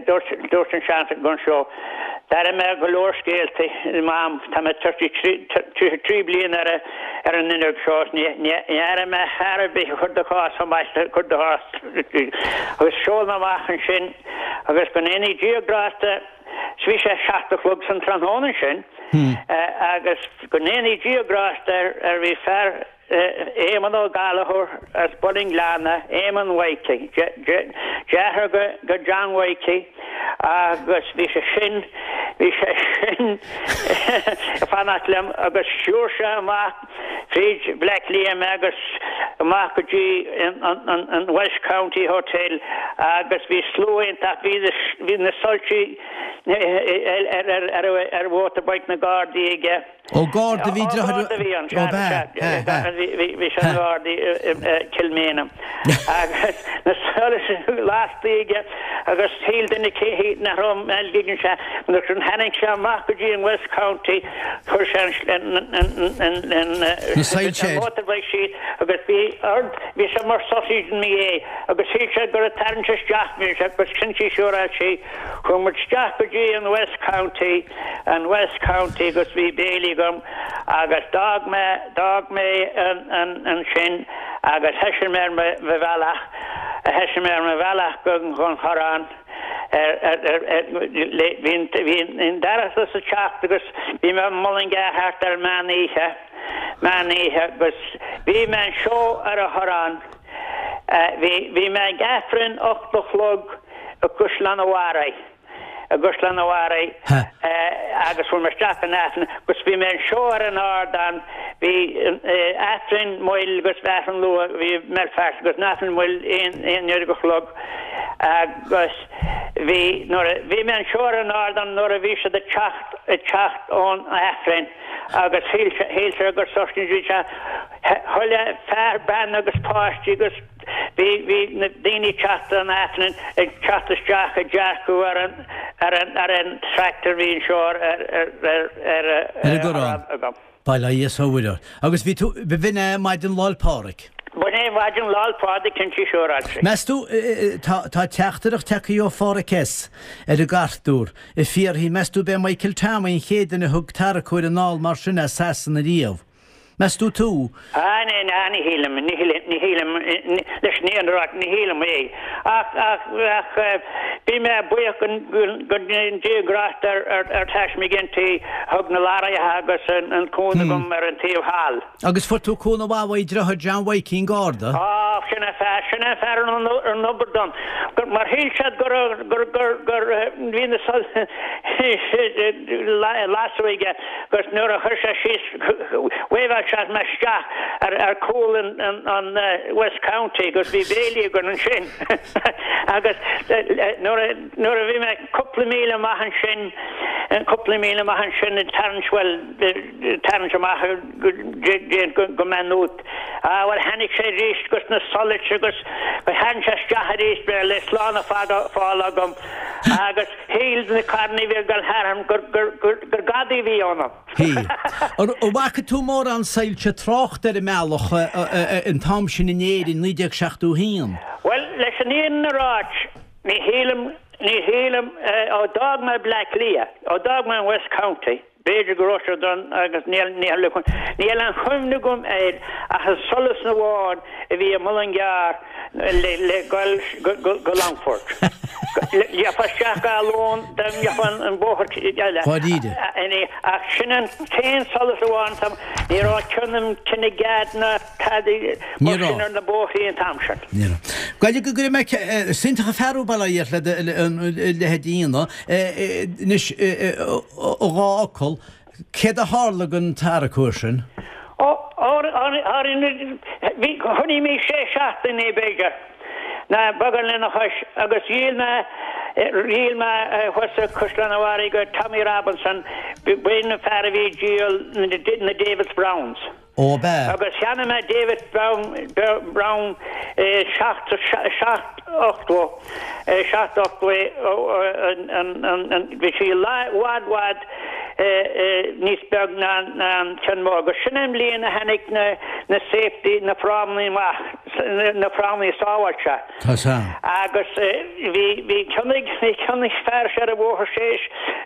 dúirt, dúirt an seanfhear agam seo, d'airigh mé go leor scéalta, Mam, tá mé 33, 33 bliain ar, ar an fhuinneog seo, ní, ní, ní airigh mé fear ar bith a chuir de chás chomh maith le chuir de chás, agus sheol mé amach ansin, agus go ndéanaí Dia grásta, 's bhí sé 7 a chlog san tráthnóna ansin, agus go ndéanaí Dia grásta air, ar bhí fear, Éamonn Ó Gallchóir as Bun an Ghleanna, Éamonn Mhaidhcí, deartháir go John Mhaidhcí agus bhí sé sin, bhí sé sin ag fanacht liom agus stiúir sé amach fríd Bleá Cliath mé agus amach go dtí an West County Hotel agus bhí slua iontach, bhí na soilsí ar mhotorbike na Gardaí aige. Ó Garda a bhí deartháir Garda a bhí ann, sea, sea, bhí sé ina Gharda i Kilmainham. Agus na solais lasta aige agus shíl duine cé nach raibh Mel Giggins sé, nuair a tháinig sé amach go dtí an West County, chuir sé an motorbike síos agus bhí ord, bhí sé mar sausage in mo dhiaidh agus shíl sé gur ag tarraingt isteach mé agus sin sí siúráilte. Chuaigh muid isteach go dtí an West County, an West County agus bhí béilí agam agus d'fhág mé, d'fhág mé an, an, ansin agus thoisigh mé ar mo, mo bhealach, thoisigh mé ar mo bhealach go, gon Chorrán ar, ar, ar, ar, le, bhí an, bhí an dorchadas ag teacht agus bhí mé i Mullingar thart ar meán oíche, meán oíche agus bhí mé anseo ar an Chorrán, bhí, bhí mé ag Aifreann 8 a chlog i gCaisleán an Bharraigh. i gCaisleán an Bharraigh agus fuair mé isteach an Aifreann agus bhí mé anseo ar an ardán, bhí Aifreann moill agus bhí Aifreann luath, bhí i mBelfast agus an Aifreann moill aon uair go chlog agus bhí nuair a bhí mé anseo ar an ardán nuair a bhí siad ag teacht ag teacht ón Aifreann agus shíl shíl sé gur soiscéal bhí sé chuile fear bean agus páistí agus Bhí, bhí na daoine ag teacht ón Aifreann ag teacht isteach ag dearcadh ar an, ar an, ar an tractor a bhí anseo ar, ar, ar, ar, ar, Ar an gCorrán. agam. Bail ó Dhia is ó Mhuire ort. Agus bhí tú, b'in é maidin Lá'l Pádraig. B'in é maidin Lá'l Pádraig cinnte siúráilte. Meas tú, tá, tá teachtaireacht tagtha ó Pháraic S. ar an gcartúr, ag fiafraí, meas tú b'é Michael Tommy an chéad duine a thug tarracóir anall mar sin as Sasana riamh? Meas tú tú? Ah, ní, ní shílim, ní shílim, ní shílim, leis an fhírinne a rá, ní shílim é. Ach, ach, ach, bhí mé buíoch go Dia grásta ar, ar, ar Tash McGinty a thug na lorraithe agus an cúnamh dom ar an taobh thall. Agus fuair tú cúnamh mhaith uaidh deartháir John Mhaidhcí an Garda? Á, sin é fear, sin é fear an, an obair dom. Gur, mar shíl siad gur, gur, gur, gur, bhí na soilse lasadh aige agus nuair a chuir sé síos, Wave sé mé isteach ar chúl an West County agus bhí béilí againn ansin agus nuair a bhí mé cúpla míle amach ansin, cúpla míle amach ansin ag tarraingt, bhuel, tarraingt amach go Maynooth, ah bhuel tháinig sé arís agus na solais agus tharraing sé isteach arís mé le slán a fáil agam agus shíl na carranna a bhí ag dul tharam gur gadaí a bhí ionam. Hí. An bhfaca tú mórán soilse tráchta ar an mbealach an t-am sin in Éirinn, 1971? Bhuel, leis an fhírinne a ráit, ní shílim, ní shílim, ó d'fhág mé Bleá Cliath, ó d'fhág mé an West County, B'fhéidir go raibh siad ann agus níl níl aon chuimhne agam air ach an solas amháin a bhí i Mullingar le le goil go go Longfort. Gheofá isteach go Athlone dá ngeofá an bóthar eile. Dháiríre. Ach sin an t-aon solas amháin tá ní raibh ceann an Kinnegad ná tada Ní mar sin raibh. ar na bóithrí an t-am sin. Ní raibh. Gaillimh go gcuirfidh mé is iontach an fear thú bail ó Dhia ort le do leithéid a dhéanamh. Anois i dhá fhocal, céard a tharla don tarracóir sin? Ó, bhí, choinnigh mé sé seachtaine b'fhéidir, ná beagán lena chois, agus dhíol mé, dhíol mé thuas i Caisleán an Bharraigh go Tommy Robinson, b'in an fear a bhí ag díol na Davis Browns. Ó, ab ea? Agus cheannaigh mé David Brown, Brown 7, 7, 80, 7, 80, bhí sí i bhfad, bhfad níos beag ná an ceann mór. Agus sin an bhliain a tháinig na safety, na frámaí amach, na frámaí sábháilte. Tá 's a'm. Agus bhí, bhí ceann ag, bhí ceann ag fear seo ar an bhóthar sé,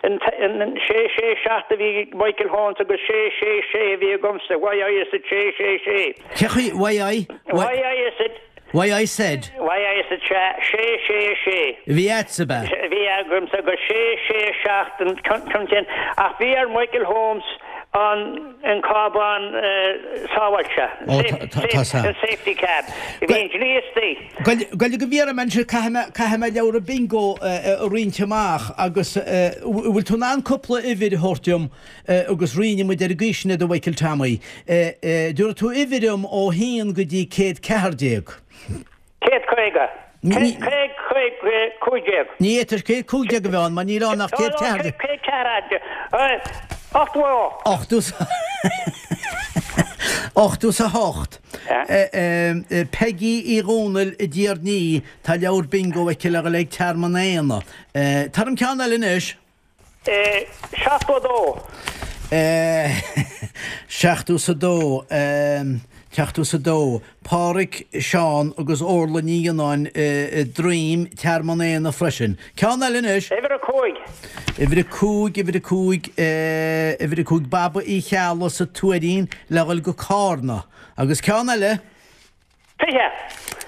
an, an, sé, sé, seacht a bhí ag Michael Holmes agus sé, sé, sé a bhí agamsa, why I said sé, sé, sé. Cé chaoi, why I, why I said. Why I said. Why I said sé, sé, sé, sé. A bhí a'dsa, ab ea? A bhí agamsa agus sé, sé, seacht an ceann sin ach bhí ar Michael Holmes an, an cábán sábháilte, an safety cab. Bhí an dlí istigh. Gabh go bhfiafraí anois, caithfidh mé leabhar bingo a roinnt amach agus bhfuil tú in ann cúpla uimhir a thabhairt dom agus roinnfidh muid ar an gcaoi sin iad a Mhichael Tommy. Tabharfaidh tú uimhir dom ó haon go dtí 114. 150. 115. Ní fhéadfadh 115 a bheith ann mar níl ann ach 114. 114. 88. 88. Peggy Uí Dhónaill i dTír an Fhia, tá leabhar bingo aici le dhul ag Tearmann Éanna. Tabhair dom ceann eile anois. 72. 72, 72, Páraic, Seán agus Orla Ní Fhionnáin i Droim, Tearmann Éanna freisin. Ceann eile anois. Uimhir 5. Uimhir 5, Uimhir 5, Uimhir 5, Baba Uí Cheallaigh sa Tuairín le dhul go Cárna. Agus ceann eile. 20.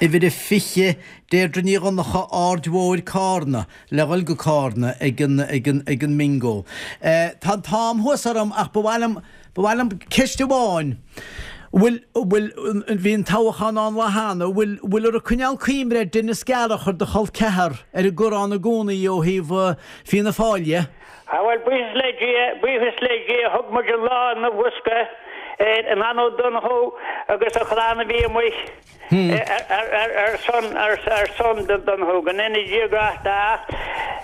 Uimhir a 20, Deirdre Ní Dhonncha, Aird Mhóir, Cárna, le dhul go Cárna ag an, ag an, ag an mbingo. Tá an t-am thuas orm ach ba mhaith liom, ba mhaith liom ceist amháin. Bhfuil, bhfuil, bhí an toghchán ann lá cheana, bhfuil, bhfuil ag coinneáil cuimhne ar Denis Gallagher, do chol ceathar, ar an gCorrán i gcónaí ó thaobh Fianna Fáil dhe? Á bhuel, buíochas le Dia, buíochas le Dia, thug muid an lá ina bhosca ar Nan Ó Donnchú agus a chlann a bhí amuigh ar son, ar son Donnchú, go ndéana Dia grásta ach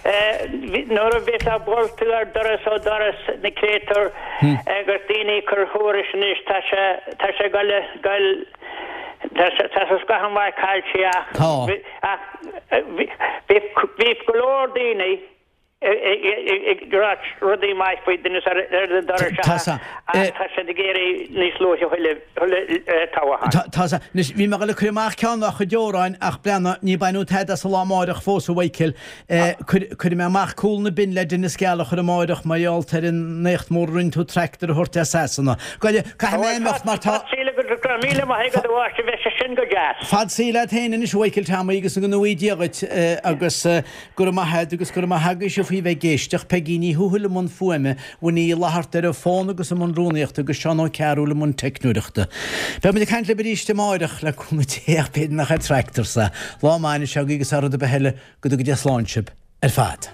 nuair a bheifeá ag bualadh ar doras ó doras na créatúir agus daoine ag cur thuairisc anois, tá sé, tá sé ag goil, goil, tá sé, tá sé scaitheamh maith caillte ach, ach bhí go leor daoine, ag ráit rudaí maith faoi Denis ar an doras ach tá siad ag iarraidh níos luaithe thuilleadh toghcháin. Tá a. Anois, bhí mé ag dul ag cur amach ceann dá chuid amhráin ach breathnaigh, ní baineadh tada as an lá amáireach fós, a Mhichael. Cuirfidh mé amach Cúl na Binne le Denis Gallagher amáireach mar gheall ar an éacht mór a rinne tú tractor a thabhairt as Sasana. Gabh, caithfidh mé imeacht mar tá. Fad saoil agat go raibh míle maith agat a mháistir, bheadh sé sin go deas. Fad saoil agat féin anois a Mhichael Tommy agus go ngnóthaí Dia dhuit agus. Go raibh maith a't agus go raibh maith agaibhse faoi bheith ag éisteacht, Peigí Ní Thuathail i mbun fuaime, Winnie Uí Fhlatharta ar an bhfón agus i mbun rúnaíochta agus Seán Ó Cearúil i mbun teicneoireachta. Beidh muid ag caint libh arís amáireach, le cúnamh Dé ach b'fhéidir nach ar tractor sa. Lá maith anois agaibh agus thar rud ar bith eile, go dtuga Dia slán sibh ar fad.